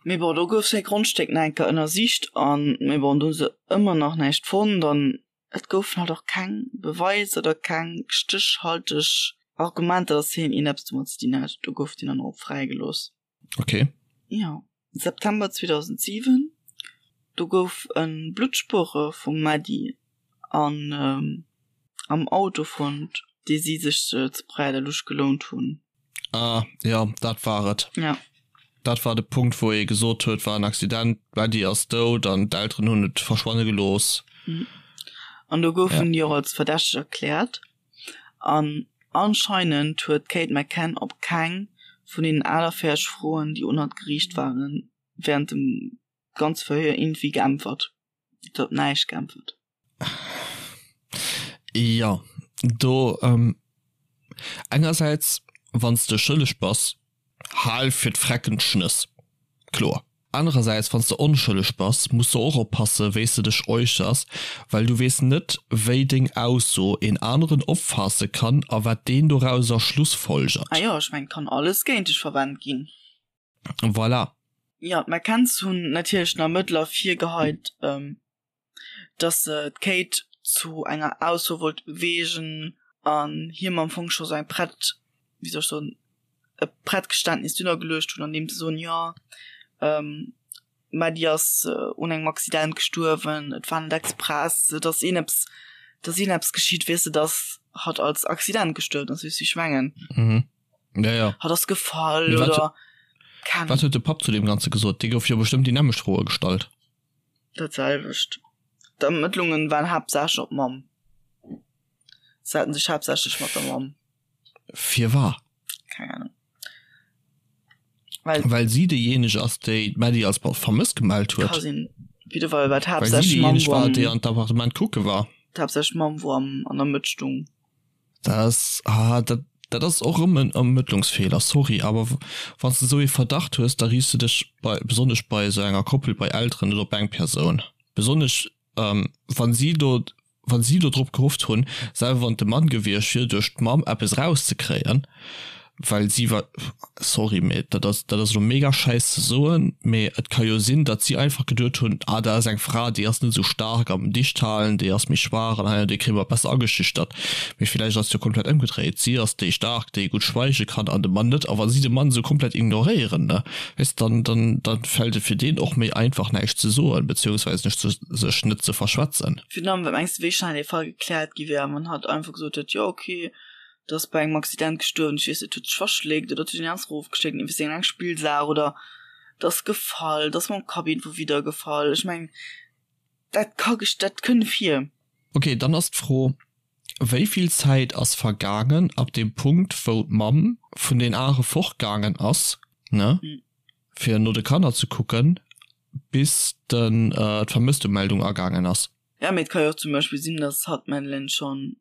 Mee bon, do gouf säi Grondstéck nach eng Kéier ënnersicht an, mee bon, do hu se ëmmer nach näischt fonnt an Et goufen halt och keng Beweiser oder keng stéchhalteg Argumenter, dass hien iergendeppes domat ze dinn hätt. Do gouf deen dann och fräigelooss. Okay. Jo, September 2007, do gouf e Bluttspuere vum Maddie an am Auto fonnt, dee si sech zu Praia da Luz gelount hunn. Ah, jo, dat war et. Ja. Dat war de Punkt, wou ee gesot huet, war en Accident, d'Maddie ass dout an d'Elteren hunn et verschwanne gelooss. An do goufen déi och als verdächteg erkläert. An anscheinend huet d'Kate McCann op keng vun deenen 48 Froen, déi un hatt geriicht waren, wärend dem ganze Verhéier iergendwéi geäntwert. Si huet op näischt geäntwert. Jo, do engersäits, wann s de schëlleg bass, hal fir d'Frecken d'Schnëss, kloer. Anerersäits, wann s de onschëlleg bass, muss de och oppasse wéi s de dech äussers, well du weess net, wéi deng Ausso een aneren opfaasse kann a wat deen dorauser schlussfolgert. Ah jo, ech mengen, et kann alles géint dech verwennt ginn. Voilà. Jo, d'McCanns hunn natierlech den Ermëttler virgeheit, dass se d'Kate zu enger Ausso wollte beweegen an him am Fong scho sou eng prett, wéi soll ech soen, e prett Geständnis dunner geluecht hunn, an deem se soen, jo, d'Maddie ass un engem Accident gestuerwen, et war net express, et ass een eppes, et ass een eppes geschitt, weess de, dass hatt als Accident gestuerwen ass, weess du, wéi ech mengen? Mhm. Ja, ja. Hatt ass gefall oder keng. Wat huet de Papp zu deem Ganze gesot? Dee gouf jo bestëmmt déi nämmlecht Froe gestallt. Dat selwecht. D'Ermëttlungen waren haaptsächlech op d'Mamm. Se haten sech haaptsächlech mat der Mamm. Firwat? Keng Ahnung. Well, Well si déijéineg ass, déi d'Maddie als vermësst gemellt huet. Ka sinn. Op jidde Fall war d'haaptsächlech Mamm, wou am. Déi an d'Appartement kucke war. D'haaptsächlech Mamm, wou am, an der Mëtt stung. Dat ass, ah, dat, dat ass och erëm en Ermëttlungsfeeler, sorry, awer wann s de esou ee Verdacht hues, da riichts de dech bei, besonnesch bei esou enger Koppel, bei Elteren net op eng Persoun. Besonnesch wann si do, wann si do drop gehofft hunn, selwer wann et de Mann gewiescht wier, duerch d'Mamm eppes erauszekréien, well si war, sorry, mee dat ass, dat ass elo mega schäiss ze soen, mee et ka jo sinn, datt si einfach geduet hunn, ah dat ass eng Fra, déi ass net esou staark am Dichthalen, déi ass méi schwaach an hei an déi kréie mer besser ageschüchtert. Mee villäicht ass et jo komplett ëmgedréit, si ass déi staark, déi gutt schweige kann an de Mann net. A wa si de Mann esou komplett ignoréieren, ne, weess dann, dann, dann fält et fir deen och méi einfach näischt ze soen, beziehungsweise sech ze, sech net ze verschwätzen. Virun allem, wat mengs de wéi schnell dee Fall gekläert gi wär, wann hatt einfach gesot hätt, jo okay, et ass bei engem Accident gestuerwen, ech weess net, huet sech verschléckt oder et huet een anescht erofgeschléckt, iwwer seng eng Spillsaach oder et ass gefall, et ass mam Kapp iergendwou widdergefall. Ech mengen, dat ka, dat kënn vir. Okay, dann ass d'Fro, Wéi vill Zäit ass vergaangen ab deem Punkt, wou d'Mamm vun den Are fortgaangen ass, ne, fir no de Kanner ze kucken, bis den d'Vermësstemeldung agaangen ass? Ja, mee et ka jo och zum Beispill sinn, dass hatt d'Madeleine schonn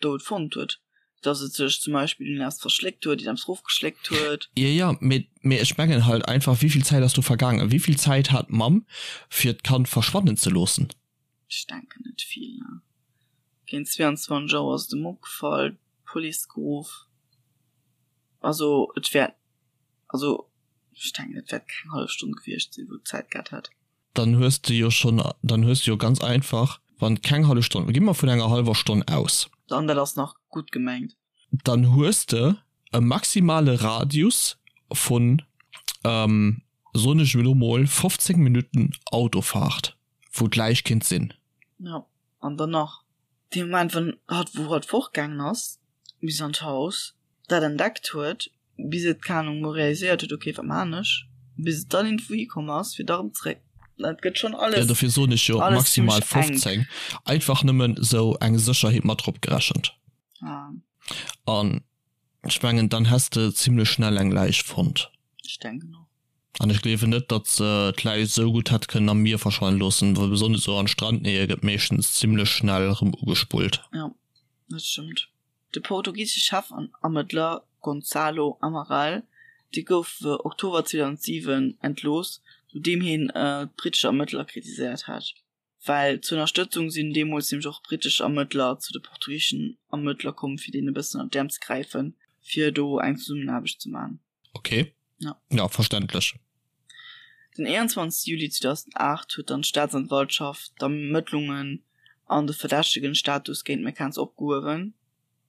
dout fonnt huet, dass et sech zum Beispill un eppes verschléckt huet, un eppes erofgeschléckt huet. Jo, jo, mee, mee ech mengen halt einfach, wéi vill Zäit ass do vergaangen? Wéi vill Zäit hat d'Mamm, fir d'Kand verschwannen ze loossen? Ech denken net vill, ne. Géint 22 Auer ass et em opgefall, d'Police geruff. Also et wäert, also ech denken et wäert keng hallef Stonn gewiescht sinn, wou et Zäit gehat hätt. Dann hues de jo schonn, dann hues de jo ganz einfach, wann keng hallef Stonn, gi mer vun enger hallwer Stonn aus. An dat ass nach gutt gemengt. Dann hues de e maximale Radius vun, soen ech elo mol, 15 Minutten Autofahrt. Wou d'Läich kinnt sinn. Jo, an dann nach dee Moment, wann hatt, wou hatt fortgaangen ass bis an d'Haus, dat entdeckt huet, bis et, keng Ahnung, mol realiséiert huet, ok, wat maan ech, bis et dann iergendwou hikomm ass, fir da rëm zréck. Dat gëtt schonn alles, Ja, dofir soen ech jo alles maximal zimmlech enk. 15. Einfach nëmmen sou eng Sécherheet mat drop gerechent. Ah. An ech mengen, dann häss de zimmlech schnell eng Läich fonnt. Ech denken och. An ech gleewen net, datt se d'Läich esou gutt hätt kënnen am Mier verschwannen loossen, well besonnesch esou an Strandnähe gëtt meeschtens zimmlech schnell erëm ugespullt. Jo, dat stëmmt. De portugisesche Chefermëttler Gonçalo Amaral, dee gouf Oktober 2007 entlooss, nodeem hien d'brittesch Ermëttler kritiséiert hat. Well zur Ënnerstëtzung sinn deemools nämlech och brittesch Ermëttler zu de portugiseschen Ermëttler komm, fir deenen e bëssen ënner d'Äerm ze gräifen, fir do eng Zesummenaarbecht ze maachen. Okay. Ja. Ja, verständlech. Den 21 Juli 2008 huet dann d'Staatsanwaltschaft d'Ermëttlungen an de verdächtegen Status géint d'McCanns opgehuewen.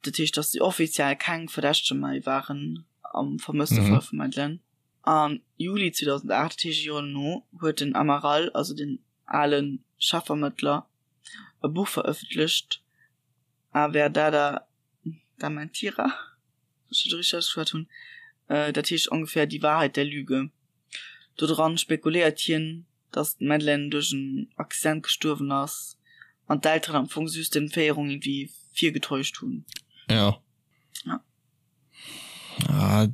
Dat heescht, datt si offiziell keng Verdächtege méi waren am Vermësstefall mhm. vum Madeleine. Am Juli 2008, dat heescht e Joer dono, huet den Amaral, also den ale Chefermëttler, e Buch verëffentlecht, A Verdade da Mentira. Wann ech dat richteg ausgeschwat hunn, dat heescht ongeféier Die Wahrheit der Lüge. Do dran spekuléiert hien, datt d'Madeleine duerch en Accident gestuerwen ass an d'Elteren am Fong just d'Entféierung irgendwie virgetäuscht hunn. Ja. Ja. Ah,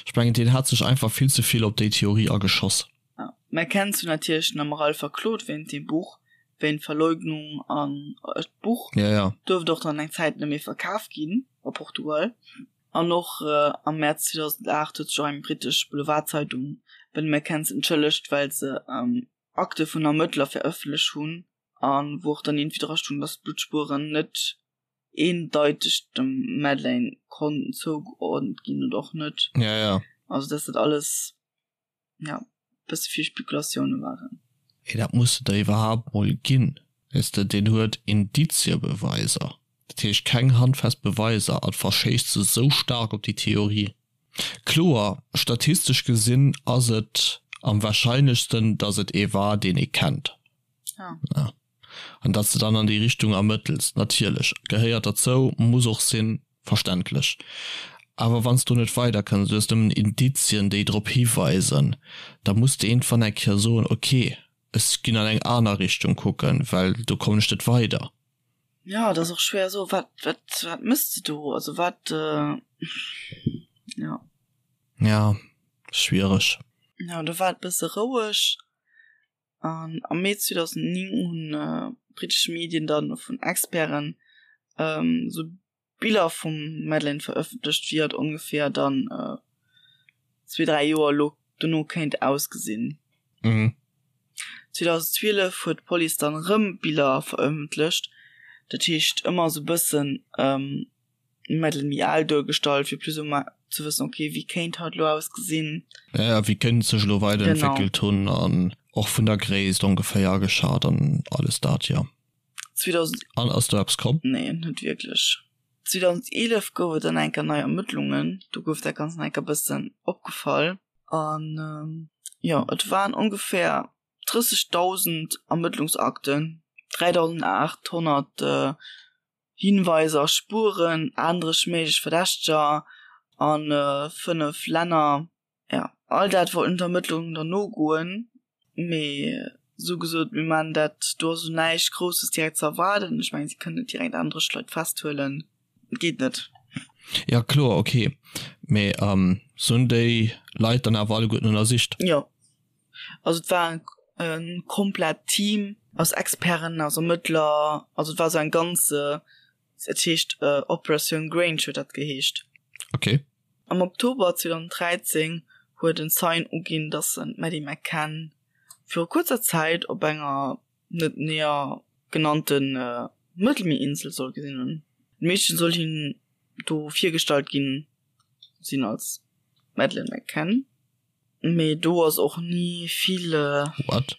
ech mengen, deen hat sech einfach vill ze vill op déi Theorie ageschoss. Ja. D'McCanns hunn natierlech den Amaral verklot wéint deem Buch, wéint Verleugnung an d'Buch ja, ja. duerft och dann eng Zäit net méi verkaf ginn a Portugal. An och am Mäerz 2008 huet sech och eng brittesch Boulevardzeitung bei de McCanns entschëllegt, well se Akte vun Ermëttler verëffentlecht hunn a wou och dann iergendwéi dra stoung, datt d'Bluttspueren net eendeiteg dem Madeleine konnten zougeordent ginn oder och net. Ja, ja. Also datt dat alles ja bësse vill Spekulatioune waren. Mee dat muss et der iwwerhaapt mol ginn, weess de, deen huet Indiziebeweiser, dat heescht keng handfest Beweiser an verschéisst se sou staark op déi Theorie. Kloer, statistesch gesinn ass et am wahrscheinlechsten, datt et ee war, deen ee kennt. Ja. An datt s de dann an déi Richtung ermëttels, natierlech, gehéiert derzou, muss och sinn, verständlech. Awer wann s do net weiderkënns, du hues nëmmen Indizien, déi drop hiweisen, da muss de iergendwann eng Kéier soen, ok, ech ginn an eng aner Richtung kucken, well do kommen ech net weider. Jo, et ass och schwéier soen, wat, wat, wat méchs de do? Also wat, jo. Ja, schwiereg. Jo, do war et bësse roueg. An am Mee 2009 hunn brittesch Medien dann vun Experten esou. Biller vum Madeleine verëffentlecht, wéi hatt ongeféier dann zwee, dräi Joer elo dono kéint ausgesinn. 2012 huet d'Police dann erëm Biller verëffentlecht, dat heescht ëmmer esou bëssen d'Madeleine méi al duergestallt, fir plus ou moins ze wëssen, ok, wéi kéint hatt elo ausgesinn. Ja, wéi kéint et sech elo weiderentwéckelt hunn an och vun der Gréisst ongeféier ageschat an alles dat, jo. 2000. An ass do eppes komm? Nee, net wierklech. 2011 gouf et dann eng Kéier nei Ermëttlungen, do gouf dat Ganzt nach eng Kéier e bëssen opgefall. An jo, et waren ongeféier 30.000 Ermëttlungsakten, 3.800 Hinweiser a Spueren, 38 méiglech Verdächteger a 5 Länner. Ja, all dat wollten d'Ermëttlungen dann nogoen, mee sou gesot, mir maan dat, do ass elo näischt Grousses direkt ze erwaarden. Ech mengen, si kënnen net direkt 38 Leit festhuelen, et geet net. Ja kloer, ok, mee se hunn déi Leit dann awer alleguerten ënnersicht? Jo, also et war e komplett Team aus Experten, aus Ermëttler, also et war sou eng ganz, et heescht Operatioun Grange huet dat geheescht. Ok. Am Oktober 2013 huet en Zeien uginn, datt en d'Maddie McCann viru kuerzer Zäit op enger net näher genannte Mëttelmierinsel soll gesinn hunn. D'Meedchen soll him do virgestallt ginn sinn als Madeleine McCann, mee do ass och ni vill. What?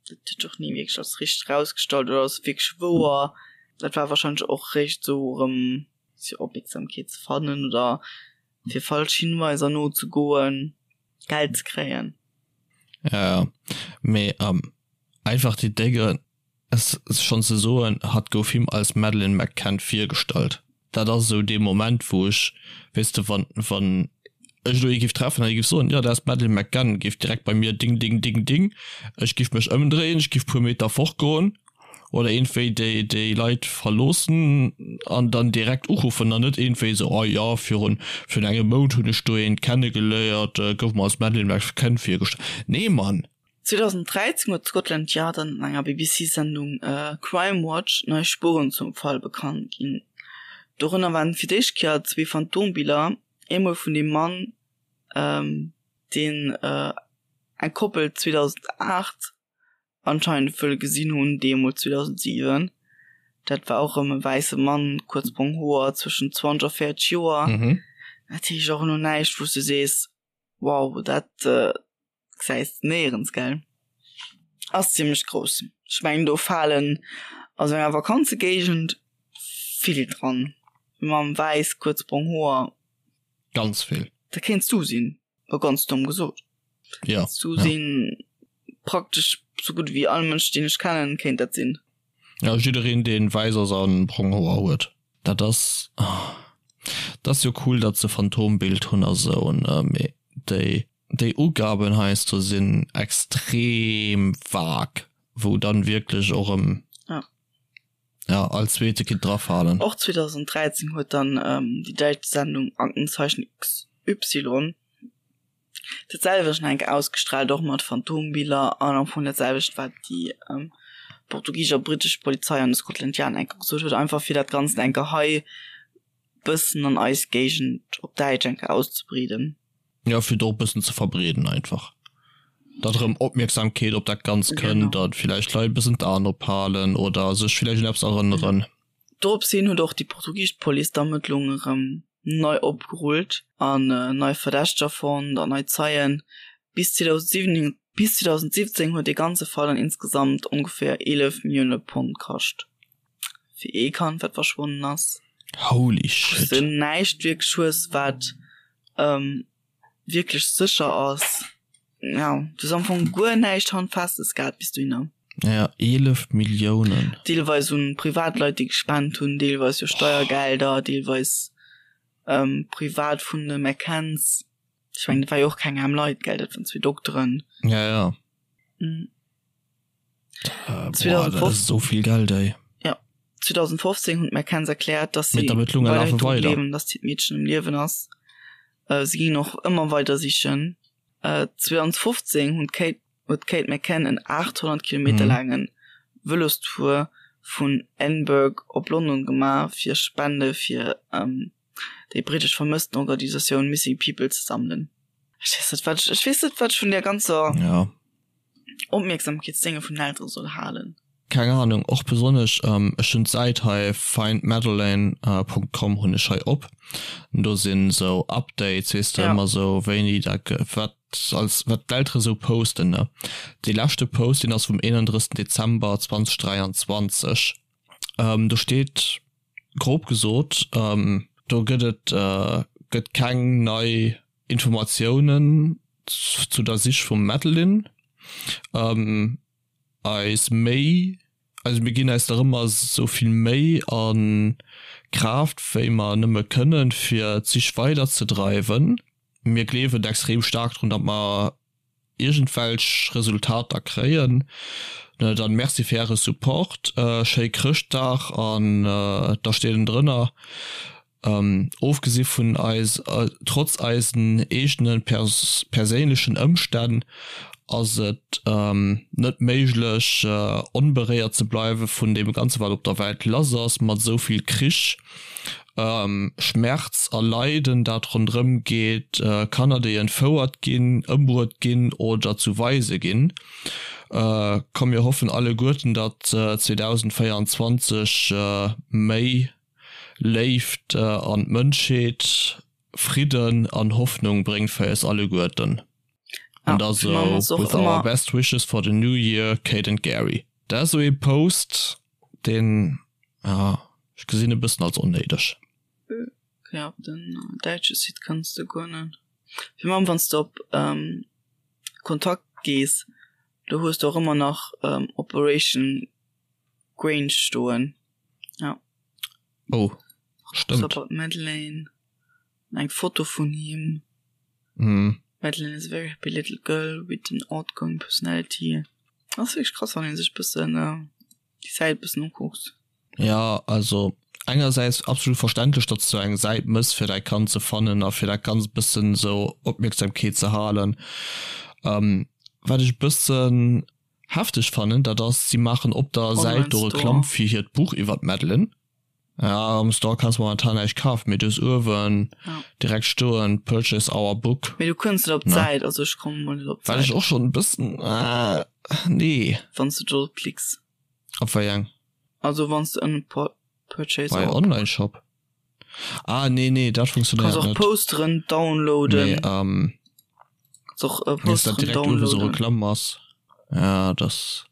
Dat huet sech och ni wierklech als richteg erausgestallt oder ass wierklech wouer. Dat war warscheinlech och réischt esou erëm. fir Opmierksamkeet ze fannen oder fir falsch Hinweiser nozegoen, Geld ze kréien. Ja, ja. Mee ähm, einfach déi Dénge schonn ze soen, hatt gouf him als Madeleine McCann virgestallt. Dat ass esou dee Moment, wou ech, weess de, wann, wann ech elo ee giff treffen an ee giff soen, jo, dat ass d'Madeleine McCann, géif direkt bei mir ding, ding, ding, ding, ech giff mech ëmdréien, ech giff puer Meter fortgoen. Oder iergendwéi déi déi Leit verloossen an dann direkt uruffen an net iergendwéi esou, oh jo, virun virun engem Mount hunn ech do eent kennegeléiert, gouf mer als Madeleine McCann virgestallt. Nee Mann! 2013 huet Scotland Yard an enger BBC-Sendung Crime Watch nei Spueren zum Fall bekannt ginn. Dorënner waren fir d'éischt Kéier zwee Phantombiller, eemol vun dem Mann, deen eng Koppel 2008 anscheinend wëll gesinn hunn, deemools 2007. Dat war och erëm e wäisse Mann, kuerz brong Hoer, zwëschen 20 a 40 Joer. Mhm. Dat heescht och elo näischt, wou s du sees, wow, dat gesäis de néierens, gell? Ass zimmlech grouss. Ech mengen, do falen a sou enger Vakanzegéigend vill dran. Mam wäiss, kuerz brong Hoer. Ganz vill. Dat kéints du sinn. War ganz domm gesot. Ja. Zu ja. sinn praktesch sou gutt wéi all Mënsch deen ech kennen kéint dat sinn. Ja jiddereen deen wäiss ass an brong Hoer huet. Dat ass dat ass jo cool datt se Phantombild hunn a sou ne mee déi déi Ugaben heiansdo sinn extrem vague wou dann wierklech och erëm Ja. Ja, all zweete kinnt drafalen. Och 2013 huet dann déi däitsch Sendung Aktenzeichen XY dat selwecht nach eng Kéier ausgestraalt, och mat Phantombiller an am Fong dat selwecht wat déi portugisesch a brittesch Polizei an de Scotland Yard eng Kéier gesot huet, einfach fir dat Ganzt eng Kéier hei bëssen an eis Géigend op Däitsch eng Kéier auszebreeden. Jo, fir et och e bëssen ze verbreeden einfach, datt erëm Opmierksamkeet op dat Ganzt kënnt, datt villäicht Leit e bëssen d'Aen ophalen oder sech villäicht un eppes erënneren. Dorops hin huet och déi portugisesch Police d'Ermëttlungen erëm nei opgerullt an nei Verdächteger fonnt an nei Zeien. Bis 2017 huet dee ganze Fall dann insgesamt ongeféier 11 Millioune Pond kascht. Fir ee Kand wat verschwonnen ass. Holy shit. Wous de näischt wierklech hues wat wierklech sécher ass. Jo, du hues am Fong guer näischt Handfestes gehat bis dohinner. Ja, 11 Milliounen. Deelweis un Privatleit déi gespent hunn, deelweis jo Steiergelder, deelweis privat vun de McCanns. Ech mengen dat war jo och keng aarm Leit, gell, dat waren zwee Dokteren. Ja, ja. Äh, boah, dat ass esou vill Geld, ey. Ja, 2015 hunn d'McCanns erkläert, dass si weiderhin lafe dru weider. gleewen, dass d'Meedchen um Liewen ass. Äh, si ginn och ëmmer weider sichen. Äh, 2015 hunn d'Kate, huet d'Kate McCann en 800 Kilometer mhm. laangen Vëlostour. vun Edinburgh op London gemaach, fir Spende fir déi brittesch Vermësstenorganisatioun Missing People ze sammelen. Ech weess net, wat ech, ech weess net, wat ech vun där ganzer ja. Opmierksamkeetsdénge vun den Eltere soll halen. Keng Ahnung, och besonnesch, ech hunn d'Säit hei findmadeleine Punkt com hunn ech hei op, do sinn esou Updates, weess de, ëmmer esou wéini dat wat als wat d'Eltere esou posten ne. Dee leschte Post deen ass vum 31 Dezember 2023, do steet grob gesot, do gëtt et gëtt keng nei Informatiounen zu der Sich vum Madeline. Eis Méi, also mir ginn eis nach ëmmer esou vill Méi a Kraaft wéi mer nëmme kënnen, fir d'Sich weider ze dreiwen. Mir gleewen extrem staark drun, datt mer iergendwelch Resultater kréien. Dann Merci fir äre Support, schéi Chrëschtdag an da steet en drënner. Ofgesi vun eis, trotz eisen eegene perséinlechen Ëmstänn ass et net méiglech onberéiert ze bleiwe vun deem Ganze wat op der Welt lass ass, mat esou vill Krich, Schmerz a Leiden dat ronderëm geet, Kanner déi entfouert ginn, ëmbruet ginn oder zu Waise ginn. Komm mir hoffen alleguerten datt 2024 méi Léift an d'Mënschheet, Fridden an Hoffnung bréngt fir eis alleguerten. An da sou, With our best wishes for the new year, Kate and Gerry. Dat ass sou ee Post, deen, ja, ech gesinn e bëssen als onnéideg. Ja, op den däitsche Site kanns de guer net. Fir mam wann s de op Kontakt gees, do hues de och ëmmer nach Operation Grange stoen. Ja. Oh, stëmmt. About Madeleine. Eng Foto vun him. Mm. Madeleine is a very happy little girl with an outgoing personality. Dat ass wierklech krass, wann een sech bëssen äh, déi Säit bëssen ukuckt. Ja, also engersäits absolut verständlech, datt s du eng Säit mëss fir däi Kand ze fannen a fir dat Ganzt bëssen esou Opmierksamkeet ze halen. Ähm, wat ech bëssen Hefteg fannen, dat ass, si maachen op der Säit do Reklamm fir hiert Buch iwwer d'Madeleine. Ja, am Store kanns momentan näischt kafen, mee du hues uewen direkt stoen Purchase our book. Mee du kënns net op d'Säit, also ech kommen mol net op d'Säit. Wat ech och schonn e bëssen, nee. Wann s du do drop klicks. Op wéi eng? Also wann s du ënnen Purchase our book. Bei Online Shop? Ah nee nee dat funktionéiert net. Kanns och Posteren downloaden. Nee, ähm, Kanns och äh, Posteren direkt downloaden. So Reklamm ass. Ja das.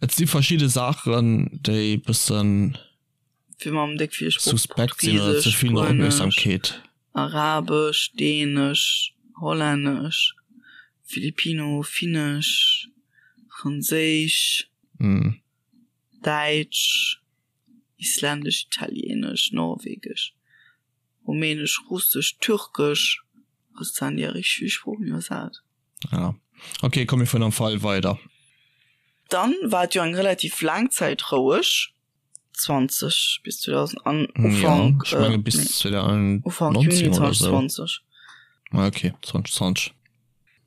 Et si verschidde Saachen déi bëssen fir mam déck vill Sprooch suspekt sinn oder ze vill no Opmierksamkeet. Arabesch, Dänesch, Hollännesch, Filipino, Finnesch, Franséisch, mm. Däitsch. Isländesch, Italienesch, Norwegesch, Rumänesch, Russesch, Türkesch, also et waren déi richteg vill Sproochen iwwersat. Ja ok, komm mir fueren am Fall weider. Dann war et jo eng relativ laang Zäit roueg, 20 bis 2000 an Ufank, ja, ech menge bis 2019 Ufank Juni 2020. Ah ok, 2020.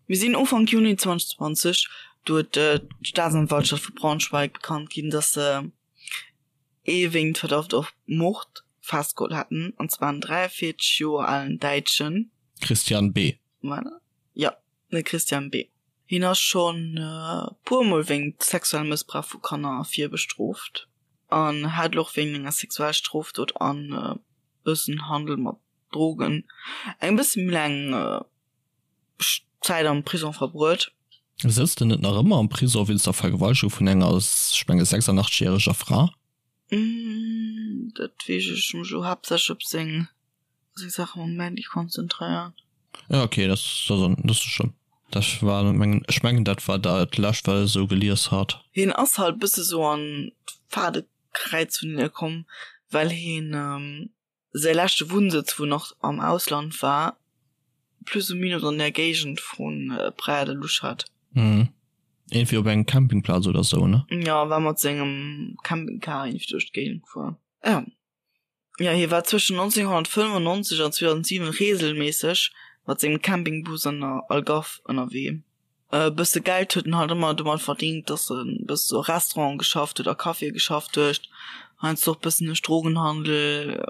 Mir sinn Ufank Juni 2020, do huet d'Staatsanwaltschaft vu Braunschweig bekannt ginn, datt se ee wéinst Verdacht op Mord festgeholl hätten, an zwar en 43 Joer alen Däitschen. Christian B. Jo, de Christian B. Hien ass schonn e puer Mol wéinst sexuellem Mëssbrauch vu Kanner virbestrooft an hat elo och wéinst enger Sexualstrofdot an e bëssen Handel mat Drogen eng bësse méi laang Zäit am Prisong verbruet. Sëtzt en net nach ëmmer am Prisong wéinst der Vergewaltegung vun enger, ech menge 86 järeger Fra? Dat weess ech, ech hu mech elo haaptsächlech op seng seng Saache mam Mandy konzentréiert. Ja ok, dat ass net schlëmm. Dat war mengen, ech mengen dat war dat lescht wat ech esou gelies hat. Hien ass halt bësse sou an d'Faadekräiz vun hinne komm, well hien Säi leschte Wunnsëtz, wou en och am Ausland war, plus ou minus an der Géigend vu Praia da Luz hat. Mhm. Iergendwéi op engem Campingplaz oder sou, ne? Jo, war mat sengem Campingcar iergendwéi duerch d'Géigend gefuer. Jo. Jo, hie war zwëschen 1995 an 2007 reegelméisseg mat sengem Campingbus an der Algarve ënnerwee. E bësse Geld huet en halt ëmmer domat verdingt, dass en e bësse sou a Restauranten geschafft huet, a Caféë geschafft huet, heiansdo och bëssen duerch Drogenhandel,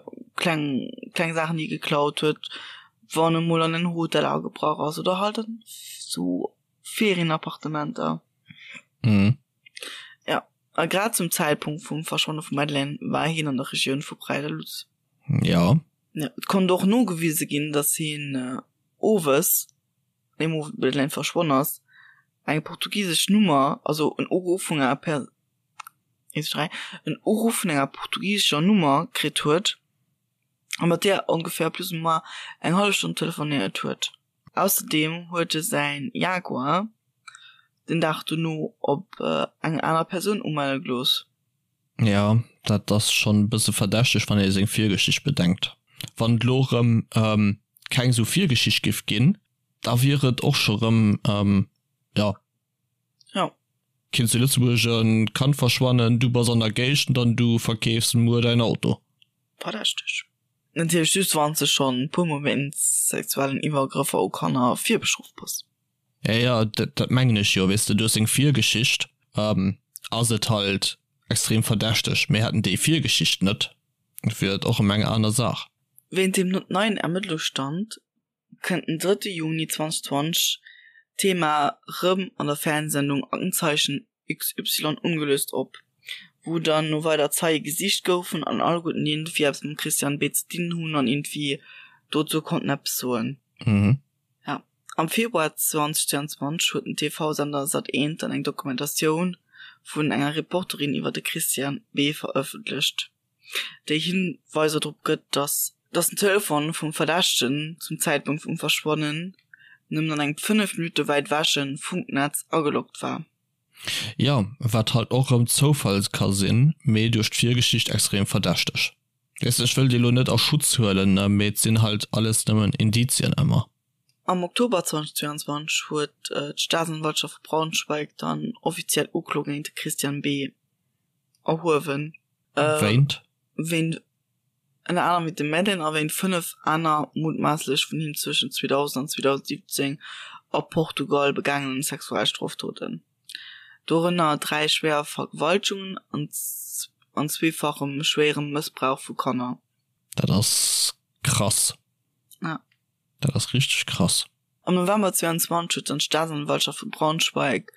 kleng, kleng Saachen, déi e geklaut huet, wann e mol an en Hotel agebrach ass oder halt an sou Ferienappartementer. Mhm. Ja, a grad zum Zäitpunkt vum Verschwanne vum Madeleine war hien an der Regioun vu Praia da Luz. Ja. Ja, et konnt och nogewise ginn, dass hien owes deem Owend wou d'Madeleine verschwonn ass, eng portugisesch Nummer, also en Uruff vun enger Per 1, 3, en Uruff vun enger portugisescher Nummer kritt huet a mat där ongeféier plus ou moins eng hallef Stonn telefonéiert huet. Ausserdeem huet e säin Jaguar den Dag dono op eng aner Persoun umelle gelooss. Jo, dat ass schonn e bësse verdächteg, wann ee seng Virgeschicht bedenkt. Wann et elo erëm keng esou Virgeschicht giff ginn, da wier et och scho rëm, jo. Jo. Kinnt zu Lëtzebuerg e Kand verschwannen, du bass an der Géigend an du verkeefs muer däin Auto. Verdächteg. Natierlech just wann s de schonn e puer mol wéinst sexuellen Iwwergrëffer u Kanner virbestrooft bass. Ja, ja, dat, dat mengen ech jo, weess de, duerch seng Virgeschicht ass et halt extrem verdächteg. Mir hätten déi Virgeschicht net, wier et och ëm eng aner Saach. Wéint dem neien Ermëttlungsstand kënnt den drëtte Juni 2020 d'Thema rëm an der Fernsehsendung Aktenzeichen XY ungelöst op, wou dann no weider Zeie gesicht goufen an alleguerten déi iergendwéi eppes mam Christian B. ze dinn hunn an iergendwéi dozou konnten eppes soen. Ja, am Februar 2022 huet den TV-Sender Sat.1 dann eng Dokumentatioun vun enger Reporterin iwwer de Christian B. verëffentlecht, déi Hinweiser drop gëtt, datt datt den Telefon vum Verdächtegen zum Zäitpunkt vum Verschwannen nëmmen an engem 5 Minutte wäit ewäche Funknetz ageloggt war. Jo, wat halt och rëm Zoufall ka sinn, mee duerch d'Virgeschicht extrem verdächteg. Weess de, ech wëll déi lo net a Schutz huelen, ne, mee et sinn halt alles nëmmen Indizien ëmmer. Am Oktober 2022 huet d'Staatsanwaltschaft vu Braunschweig dann offiziell Uklo géint de Christian B. Erhuewen. Wéint? Wéint ënner anerem wéint dem Madeleine a wéint 5 aner mutmaasslech vun him zwëschen 2000 an 2017 a Portugal begaangenen Sexualstrofdoten. Dorënner 3 schwéier Vergewaltegungen an zweefachem schwéierem Mëssbrauch vu Kanner. Dat ass krass. Ja. Dat ass richteg krass. Am November 22 huet dann d'Staatsanwaltschaft vu Braunschweig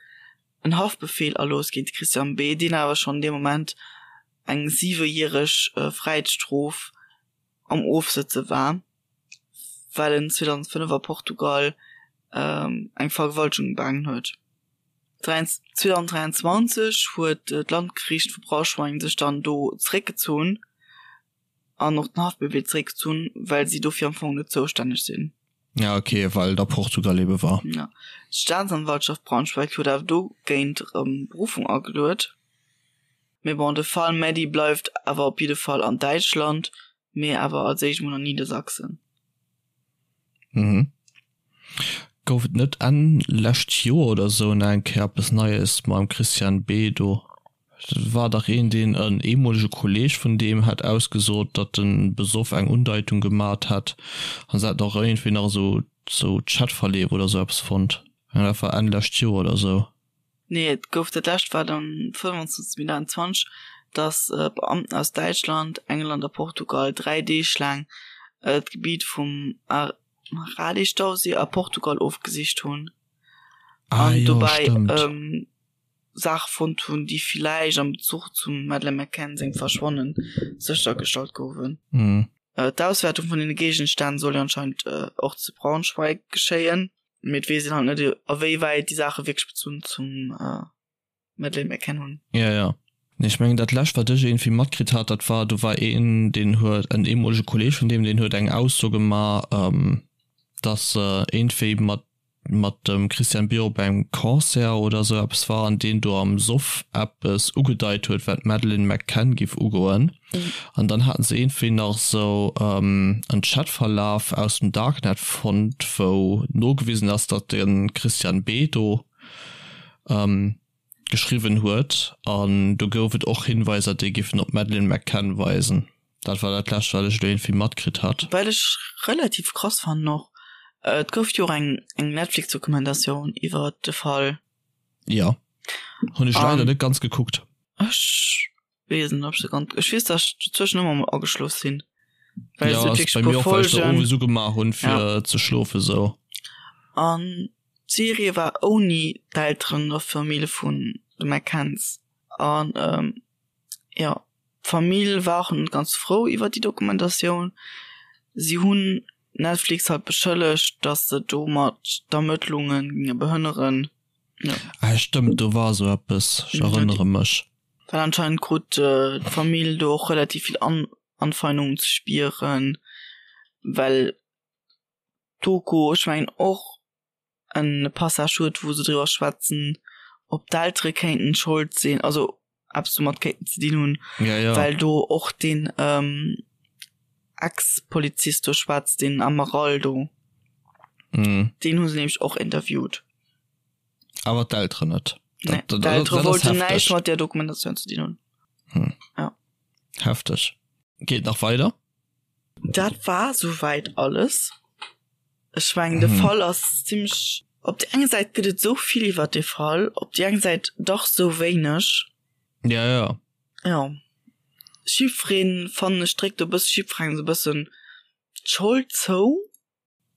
en Haftbefeel erlooss géint de Christian B., deen awer schonn dee Moment eng siwejäreg Fräiheetsstrof am Ofsëtze war, well en 2005 a Portugal eng Vergewaltegung begaangen huet. 2023 huet d'Landgeriicht vu Braunschweig sech dann do zeréckgezunn an och den Haftbefeel zeréckgezunn, well si dofir am Fong net zoustänneg sinn. Ja ok, well et a Portugal ebe war. Ja. D'Staatsanwaltschaft Braunschweig huet awer dogéint erëm Beruffung ageluet. Mee bon, de Fall Maddie bleift awer op jidde Fall an Däitschland, mee awer als éischt mol an Niedersachsen. Mhm. Gouf et net Enn lescht Joer oder sou nach eng Kéier eppes Neies mam Christian B. do? Et war dach een, deen en ehemolege Kolleg vun deem hätt ausgesot, datt en besoff eng Undeitung gemat hätt an se hätten och iergendwéi nach esou sou Chatverleef oder sou eppes fonnt. Dat war Enn lescht Joer oder sou. Nee, et gouf dat lescht war dann 25 Mee 2021, datt Beamten aus Däitschland, England a Portugal 3 Deeg laang d'Gebitt vum Arade-Stauséi a Portugal ofgesicht hunn Ah an jo, dobäi stëmmt. Saache fonnt hunn, déi villäicht am Bezuch zum Madeleine McCann sengem Verschwanne séchergestallt goufen. D'Auswäertung vun deene Géigenstänn soll jo anscheinend och zu Braunschweig geschéien. Mee et weess een halt net, a wéi wäit déi Saache wierklech Bezunn zum Madeleine McCann hunn. Ja, ja. Nee, ech mengen dat lescht wat ech iergendwéi matkritt hat, dat war, do war een, deen huet, en ehemolege Kolleg vun deem, deen huet eng Ausso gemaach, dass iergendwéi mat mat dem Christian Björk op engem Concert oder esou eppes war an deen do am Soff eppes ugedeit huet, wat d'Madeleine McCann giff ugoen. An dann haten se iergendwéi nach esou en Chatverlaf aus dem Darknet fonnt, wou nogewisen ass, datt de Christian B. do geschriwwen huet. An do gouf et och Hinweiser, déi giffen op d'Madeleine McCann weisen. Dat war dat lescht, wat ech elo iergendwéi matkritt hat. Wat ech relativ krass fannen och. Et gouf jo och eng eng Netflix-Dokumentatioun iwwer de Fall. Jo, hunn ech leider net ganz gekuckt. Ech weess net, ob ech se ganz, ech weess, datt ech dozwëschen ëmmer mol ageschlof sinn. Well ja, ass bei mir och, well ech der owes ugemaach hunn fir ja. ze schlofen sou. An d'Serie war ouni d'Elteren der Famill vun de McCanns. An ähm, ja, d'Famill war och net ganz frou iwwer déi Dokumentatioun. Si hunn Netflix halt beschëllegt, datt se domat d'Ermëttlunge ginge behënneren. Ja. Ah, stëmmt, do war sou eppes, ech erënnere mech. Well anscheinend krut d'Famill do och relativ vill An Anfeindungen ze spieren, well d'Doku, ech mengen och en Passage huet, wou se driwwer schwätzen, ob d'Eltere kéinten Schold sinn, also eppes domat kéinten ze dinn hunn, ja, ja. well do och den ähm, Ex-Polizist do schwätzt, den Amaral do. Mhm. Den hu se nämlech och interviewt. Awer d'Elteren net. Nee, d'Eltere wollten näischt mat där Dokumentatioun ze dinn hunn. Hm. Ja. Hefteg. Geet nach weider? Dat war souwäit alles. Ech mengen de Fall ass zimmlech, op déi eng Säit gëtt et esou vill iwwer dee Fall, op déi eng Säit dach esou wéineg. Ja, ja. Jo. Jiddwereen, fannen ech, dréckt e bësse jiddwerengem esou e bëssen d'Schold zou.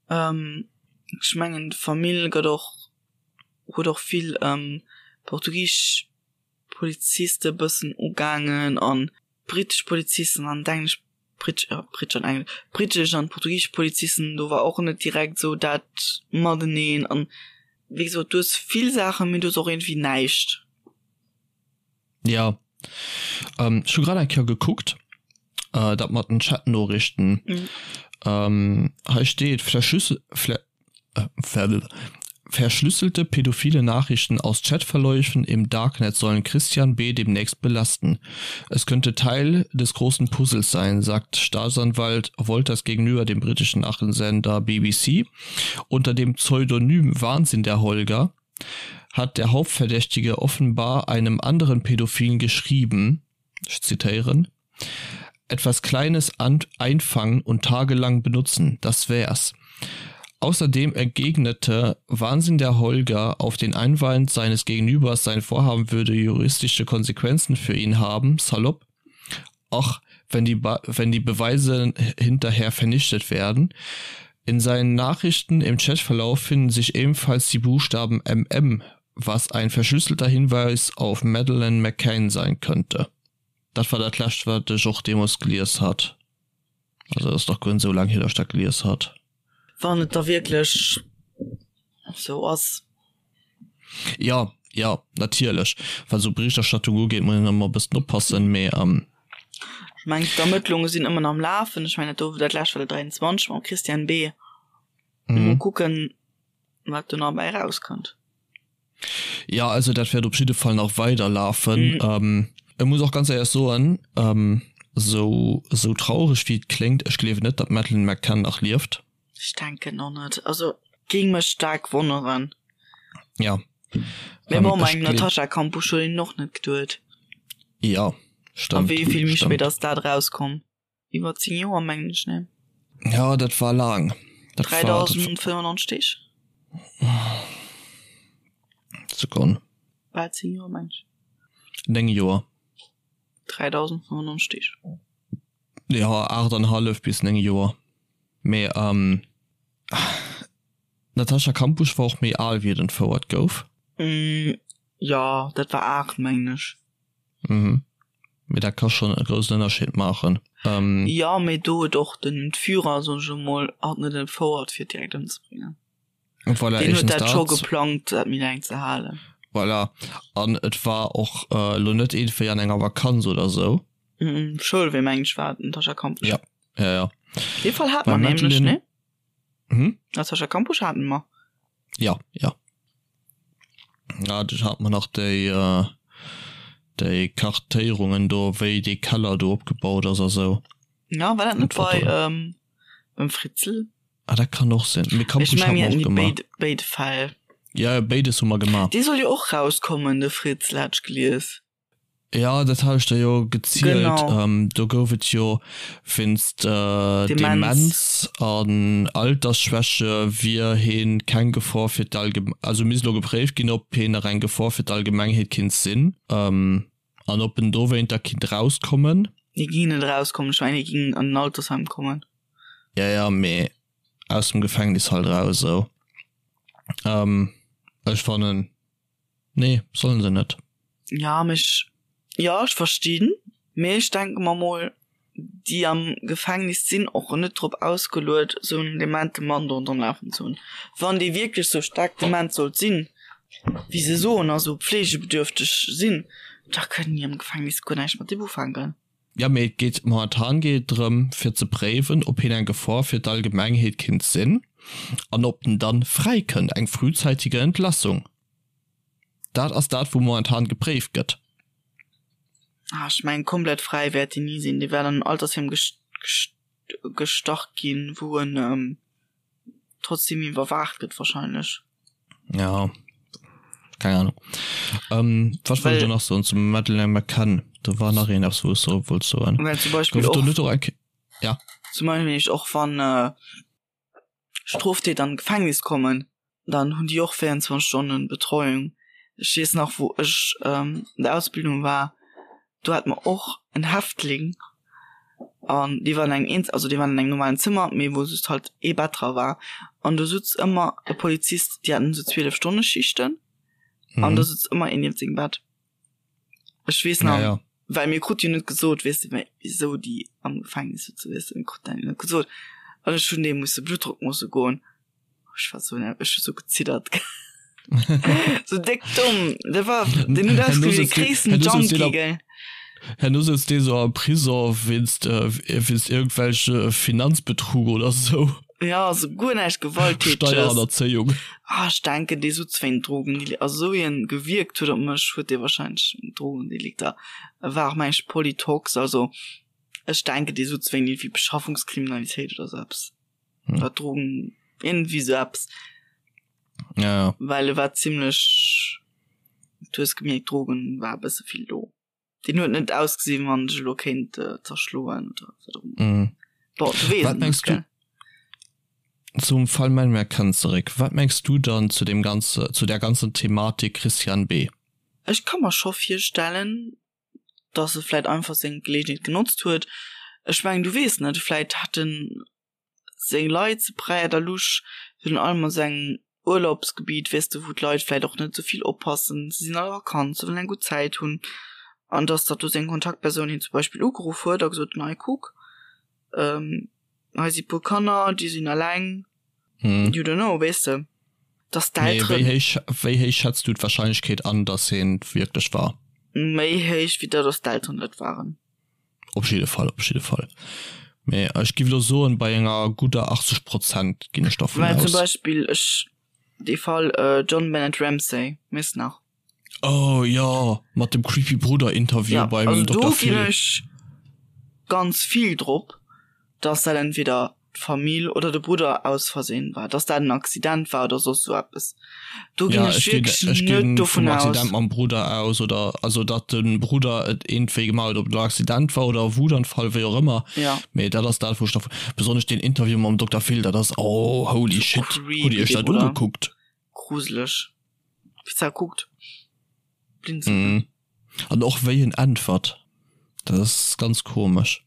Ech mengen d'Famill gëtt och, huet och vill portugisesch Poliziste bëssen ugaangen an britesch Polizisten an d'englesch Britsch, ja, britsch an engl, britesch an portugisesch Polizisten, do war och net direkt esou dat mateneen an wéi gesot, du hues vill Saachen, mee du hues och iergendwéi näischt. Ja, ähm, ech hu grad eng Kéier gekuckt, äh, dat mat den Chatnoriichten. Mhm. Ähm, hei steet, Verschlüssel, Vle, Verschlüsselte pädophile Nachrichten aus Chatverläufen im Darknet sollen Christian B. demnächst belasten. Es könnte Teil des großen Puzzles sein, sagt Staatsanwalt Wolters gegenüber dem britischen Nachrichtensender BBC. Unter dem Pseudonym Wahnsinn der Holger hat der Hauptverdächtige offenbar einem anderen Pädophilen geschrieben, ich zitieren, Etwas Kleines einfangen und tagelang benutzen, das wär's. Außerdem entgegnete Wahnsinn der Holger auf den Einwand seines Gegenübers, sein Vorhaben würde juristische Konsequenzen für ihn haben, salopp: Ach, wenn die, wenn die Beweise hinterher vernichtet werden. In seinen Nachrichten im Chatverlauf finden sich ebenfalls die Buchstaben MM, was ein verschlüsselter Hinweis auf Madeleine McCann sein könnte. Dat war dat lescht wat ech och deemols gelies hat. Also ass nach guer net esou laang hier, datt ech dat gelies hat. Wann et da wierklech esou ass. Jo, jo, natierlech. Wat esou Berichterstattung ugeet, muss een ëmmer e bëssen oppassen, mee. Ech mengen, d'Ermëttlunge sinn ëmmer nach am Lafen. Ech mengen, dat do, dat lescht war de 23 mam Christian B. Mol kucken, wat do nach bäi erauskënnt. Ja, also dat wäert op jidde Fall nach weider lafen. Mhm. Ech muss och ganz éierlech soen, sou, sou traureg wéi et kléngt, ech gleewen net, datt d'Madeleine McCann nach lieft. Ech denken och net. Also géing mech staark wonneren. Ja. Mee bon, bei engem Natascha Kampusch huet een och net geduet. Ja, stëmmt. A wéi vill méi spéit ass dat erauskomm? Iwwer 10 Joer mengen ech, ne? Ja, dat war laang. Dat 3095 Deeg. Sekonn. Bal 10 Joer mengen ech. 9 Joer. 3095 Deeg. Ja, 8,5 bis 9 Joer. Mee ähm, d'Natascha Kampusch war och méi al wéi et entfouert gouf. Mm, ja, dat war 8 mengen ech. Mhm. Mee dat ka schonn e groussen Ënnerscheed maachen. Jo, mee do huet och den Entführer, soen ech elo mol, hatt net entfouert fir et direkt ëmzebréngen. Voilà, Deen huet éischtens dat scho dat. geplangt, dat méi laang ze halen. Voilà. An et war och elo net iergendwéi an enger Vakanz oder sou. Mhm, Schoulwee mengen ech war et, Natascha Kampusch. Ja, ja, ja. Dee Fall hate Beim mer nämlech, Madeline. ne? Hm? Natascha Kampusch hate mer. Ja, ja. Ja, du hat man nach déi, äh, déi Kartéierungen do, wéi dee Keller do opgebaut ass a sou. Ja, war dat net bei, ähm, beim Fritzl? Ah, dat kann och sinn. Mee Ech Kampusch meng, hat mir mer haten och déi gemaach. béid, béid Fäll. Ja, béides hu mer gemaach. Dee soll jo och rauskommen, de Fritzl, hat ech gelies. Ja, dat hat ech der jo gezielt. Genau. Ähm, do gouf et jo wéinst äh, Demenz. Demenz an Altersschwäche wier heen keng Gefor fir d'Allgem-, also misst elo gepréift ginn, ob heen nach eng Gefor fir d'Allgemengheet kinnt sinn, ähm, an ob en dowéinter kinnt rauskommen. Hie ging net erauskommen, ech mengen hie ging an en Altersheim kommen. Ja, ja, mee aus dem Gefängnis halt eraus esou. Ähm, ech fannen. Nee, sollen se net. Ja, mee ech, jo, ech verstinn, mee ech denke mer mol, déi am Gefängnis sinn och net drop ausgeluet, esou en demente Mann do ronderëm lafen ze hunn. Wann dee wierklech sou staark dement sollt sinn, wéi se soen, a sou pflegebedürfteg sinn, da kënnen déi am Gefängnis guer näischt mat deem ufänken. Jo, mee et geet, momentan geet et drëm, fir ze préiwen, ob hien eng Gefor fir d'Allgemengheet kinnt sinn an ob en dann fräi kënnt, eng frühzeitige Entlassung. Dat ass dat, wou momentan gepréift gëtt. Ah, ech mengen, komplett fräi wäert deen ni sinn. Dee wäert an en Altersheem gestach ginn, wou en trotzdem iwwerwaacht gëtt wahrscheinlech. Ja, keng Ahnung. Ähm, wat wollt ech da nach soen zum Madeleine McCann? Do war nach een eppes wou ech soe wollt soen. Well zum Beispill Gouf et do och, net och eng Ja. zum Beispill ech och wann äh, Stroftäter an d'Gefängnis kommen, dann hunn déi och 24 Stonnen Betreuung. Ech weess nach wou ech ähm, an der Ausbildung war, do hate mer och en Häftling an dee war an engem eens also dee war an engem normalen Zëmmer, mee wou just halt ee Bett dra war an do sutz ëmmer e Polizist, déi haten esou 12 Stonne Schichten an do sutz ëmmer een nieft sengem Bett. Ech weess nach, Ja, ja. well mir krute jo net gesot, weess de, wisou déi am Gefängnis sëtzen, weess de, mir kruten dat jo net gesot an ech hunn deem musse Bluttdrock moosse goen. Ech war so ech hu so geziddert. so déck domm. Dat war den huet ausgesinn wéi de gréissten Junkie, gell. Herno sëtzt dee sou am Prison wéinst wéinst iergendwelche Finanzbetrug oder sou. Ja, sou guer näischt Gewalttäteges. Steierhannerzéiung. Ah, ech denken dee sutz wéint Drogen, also sou wéi en gewierkt huet op mech, huet dee wahrscheinlech Drogendelikter. E war och meng ech Polytox, also ech denken dee sutz wéint iergendwéi Beschaffungskriminalitéit oder sou eppes. hm. Oder Drogen irgendwie so eppes. Ja, ja. Well e war ziemlech du hues gemierkt Drogen war e bësse vill do. Den huet net ausgesinn wann ech elo kéint äh, zerschloen oder wat och ëmmer. Mhm. Bon, du weess Wat et mengs net, gell? du zum Fall Männmer kënnt zeréck? Wat mengs du dann zu dem ganze zu der ganzen Thematik Christian B? Ech ka mer scho virstellen, dass e vläit einfach seng Gelegenheet genotzt huet. Ech mengen, du weess net, vläit hat en seng Leit ze Praia da Luz, virun allem a sengem Urlaubsgebiet, weess de, wou d'Leit vläit och net esou vill oppassen, se sinn an der Vakanz, se wëllen eng gutt Zäit hunn, an dass datt do seng Kontaktpersoun hien zum Beispill ugeruff huet a gesot huet, hei kuck, hei si puer Kanner, déi sinn eleng, you don't know, weess de, dass d'Elteren. Mee wéi héich, wéi héich schätz du d'Warscheinlechkeet an, dass hien et wierklech war? Méi héich wéi dat, dass d'Elteren et waren. Op jidde Fall, op jidde Fall. Mee ech giff elo soen, bei enger gudder 80 Prozent ginn ech dervun Well zum aus. Beispill ech dee Fall John Bennett Ramsey, weess nach? Oh jo, mat dem creepy Brudder Interview Ja, beim also do Dokter ginn Phil. ech ganz vill drop, dass dat entweder d'Famill oder de Brudder aus Versehen war, dass dat en Accident war oder soss sou eppes. Do ginn Ja, ech ech ginn, wierklech ech net ginn vum dovun aus. Accident mam Brudder aus oder also datt de Brudder et iergendwéi gemaach huet, ob et elo Accident war oder Wutanfall, wéi och ëmmer. Ja. Mee dat ass dat wou ech dervun, besonnesch deen Interview mam Dokter Phil, dat ass, oh holy Sou shit, hutt creepy Dir iech dee dat Brudder. ugekuckt? Gruseleg. Wéi se kuckt. Blinzeln. Mhm. An och wéi en äntwert, dat ass ganz komesch.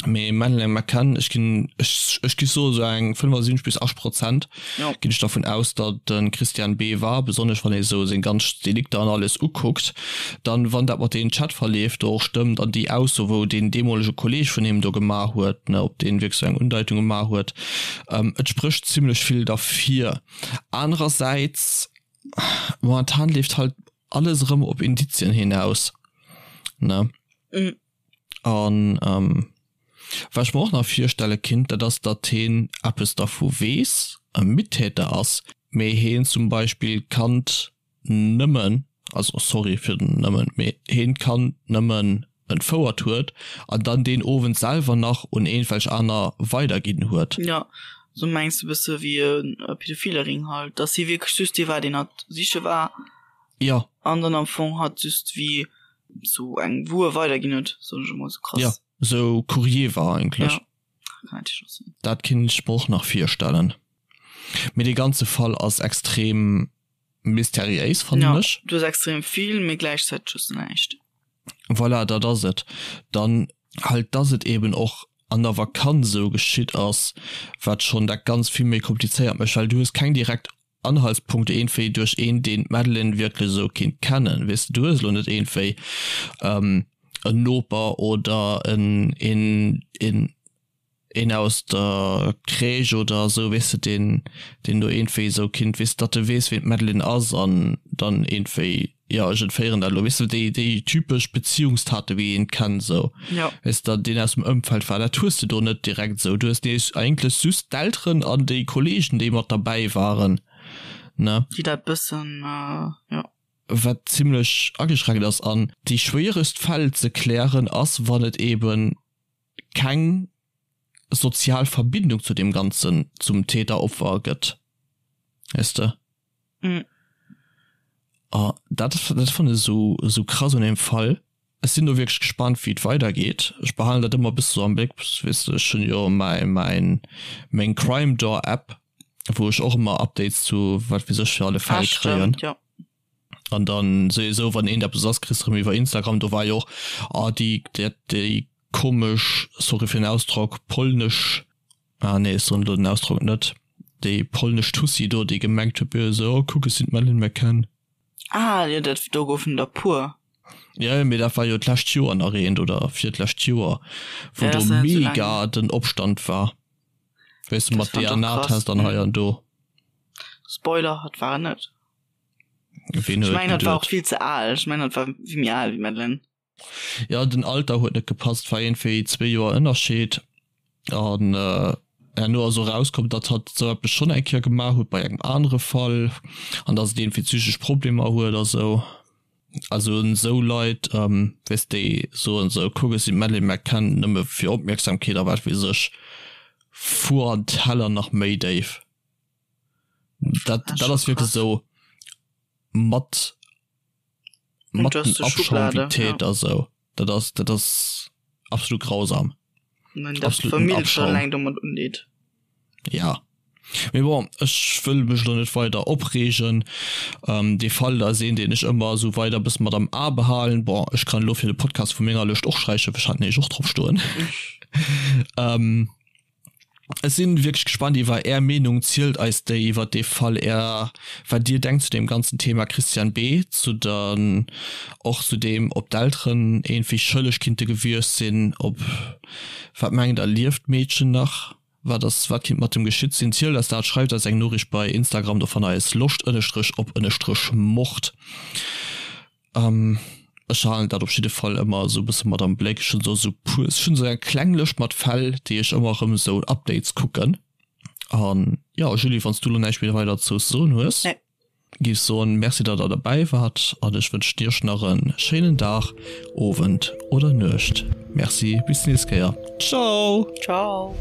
Mee Madeleine McCann, ech ginn, ech, ech gi soe sou eng 75 bis 80 Prozent Jo. ginn ech dervun aus, datt de Christian B. war, besonnesch wann ee sou seng ganz Delikter an alles ukuckt. Dann, wann dat mat deenen Chatverleef do och stëmmt an déi Ausso, wou deen deemolege Kolleeg vun him do gemaach huet, ne, ob deen wierklech sou eng Undeitung gemaach huet, et sprécht zimlech vill derfir. Anerersäits, momentan leeft halt alles erëm op Indizien hinaus, ne? Mhm. An ähm, wat ech mer och nach virstelle kinnt, dat ass, datt heen eppes dervu weess, e Mittäter ass, mee heen zum Beispill d'Kand nëmmen, also sorry fir den nëmmen, mee heen d'Kand nëmmen entfouert huet an dann deen Owend selwer nach un eenwelch aner weiderginn huet. Jo, sou mengs de bësse wéi e pädophile Ring halt, dass hie wierklech just dee war, deen hatt siche war. Jo. An dann am Fong hatt just wéi. sou eng Wuer weiderginn huet, soen ech emol, sou krass. Ja, sou Courrier war eigentlech. Ja, kann natierlech och sinn. Dat kinnt ech mer och nach virstellen. Mee dee ganze Fall ass extrem mysteriéis, fannen ech. Ja, du hues extrem vill, mee gläichzäiteg hues du näischt. Voilà, dat ass et dann halt, dass et eben och an der Vakanz esou geschitt ass, wat schonn dat Ganzt vill méi komplizéiert mécht, well du hues keng direkt Anhaltspunkte iergendwéi duerch een, deen d'Madeline wierklech esou kinnt kennen, weess de. Du hues elo net iergendwéi en Noper oder en, een, een, een aus der Crèche oder esou, weess de, deen, deen do iergendwéi esou kinnt, weess de, datt e weess, ween d'Madeline ass an dann iergendwéi, jo, ech entféieren dat elo, weess de, déi, déi typesch Beziehungstate wéi een et kennt esou, Jo. weess de, deen aus dem Ëmfeld war, dat hues de do net direkt esou. Du hues nees eigentlech just d'Elteren an déi Kollegen, déi mat derbäi waren, ne? Déi dat bëssen, jo. Wat zimlech ageschränkt ass. An déi schwéieregst Fäll ze klären ass, wann et eben keng sozial Verbindung zu deem Ganzen, zum Täter-Opfer gëtt, weess de? Mm. A dat, dat fannen ech esou, esou krass un deem Fall. Ech sinn do wierklech gespannt, wéi et weidergeet. Ech behalen dat ëmmer e bësse sou am Bléck, weess de, ech hunn jo mäi, mäin, meng Crime Door App, wou ech och ëmmer Updates zu wat weess ech fir alle Ah, Fäll kréien. stimmt, jo. An dann souwisou, wann eent eppes ass, kriss de rëm iwwer Instagram, do war jo och, ah, déi, déi, déi komesch, sorry fir den Ausdrock, polnesch, ah nee, ech soen elo den Ausdrock net, déi polnesch Tussi do, déi gemengt huet, jo esou, oh kuck, ech sinn d'Madeleine McCann. Ah jo, dat, do goufen der puer. Jo, jo, mee dat war jo d'lescht Joer nach eent oder virtlescht Joer, wou Ja, do ass net esou laang mega hier. den Opstand war, weess de, Dat mat fand och krass. DNA-Test an hei an do. Spoiler, hat war en net. Ween Ech huet mengen, dat war och geduet? vill ze al. Ech mengen, dat war vill méi al wéi Madeleine. Ja, den Alter huet net gepasst, war iergendwéi zwee Joer Ënnerscheed. An herno ass och erauskomm, datt hatt esou eppes schonn eng Kéier gemaach huet bei engem anere Fall an datt et iergendwéi psychesch Problemer huet a sou. Also esou Leit, weess déi soen esou, kuck ech sinn d'Madeleine McCann, nëmme fir Opmierksamkeet a wat weess ech, fuer an d'Heller nach méi déif. Dat, dat ass wierklech esou mat mat den Abschaum wéi Täter esou. Dat ass, dat ass absolut grausam. Absoluten Abschaum. Ja. Mee bon, ech wëll mech elo net weider opreegen. Ähm, dee Fall ass een, deen ech ëmmer esou weider e bësse mat am A behalen. Bon, ech kann elo fir de Podcast vu menger Lëscht och sträichen, ech hat nämlech och drop stoen. Ähm. Ech sinn wierklech gespannt iwwer är Meenung. Zielt eis déi iwwer dee Fall, är wat dir denkt zu deem ganzen Thema Christian B. Zu dann och zu deem ob d'Elteren iergendwéi schëlleg kinnte gewiescht sinn, ob wat mengt der lieft d'Meedchen nach, wat ass wat kinnt mat em geschitt sinn? Zielt eis dat, schreift eis eng Noriicht bei Instagram, do fannt der eis loscht ënnestrech op ënnestrech mord. Ech halen dat op jidde Fall ëmmer esou e bësse mat am Bléck. Ech hunn do esou puer, ech hunn esou eng kleng Lëscht mat Fäll, déi ech ëmmer erëm esou Updates kucken. An jo, Julie, wann s du elo näischt méi weider dozou ze soen hues, géif ech soen, Merci, datt der derbäi waart an ech wënschen iech nach e schéinen Dag, Owend oder Nuecht. Merci, bis d'nächst Kéier. Ciao! Ciao!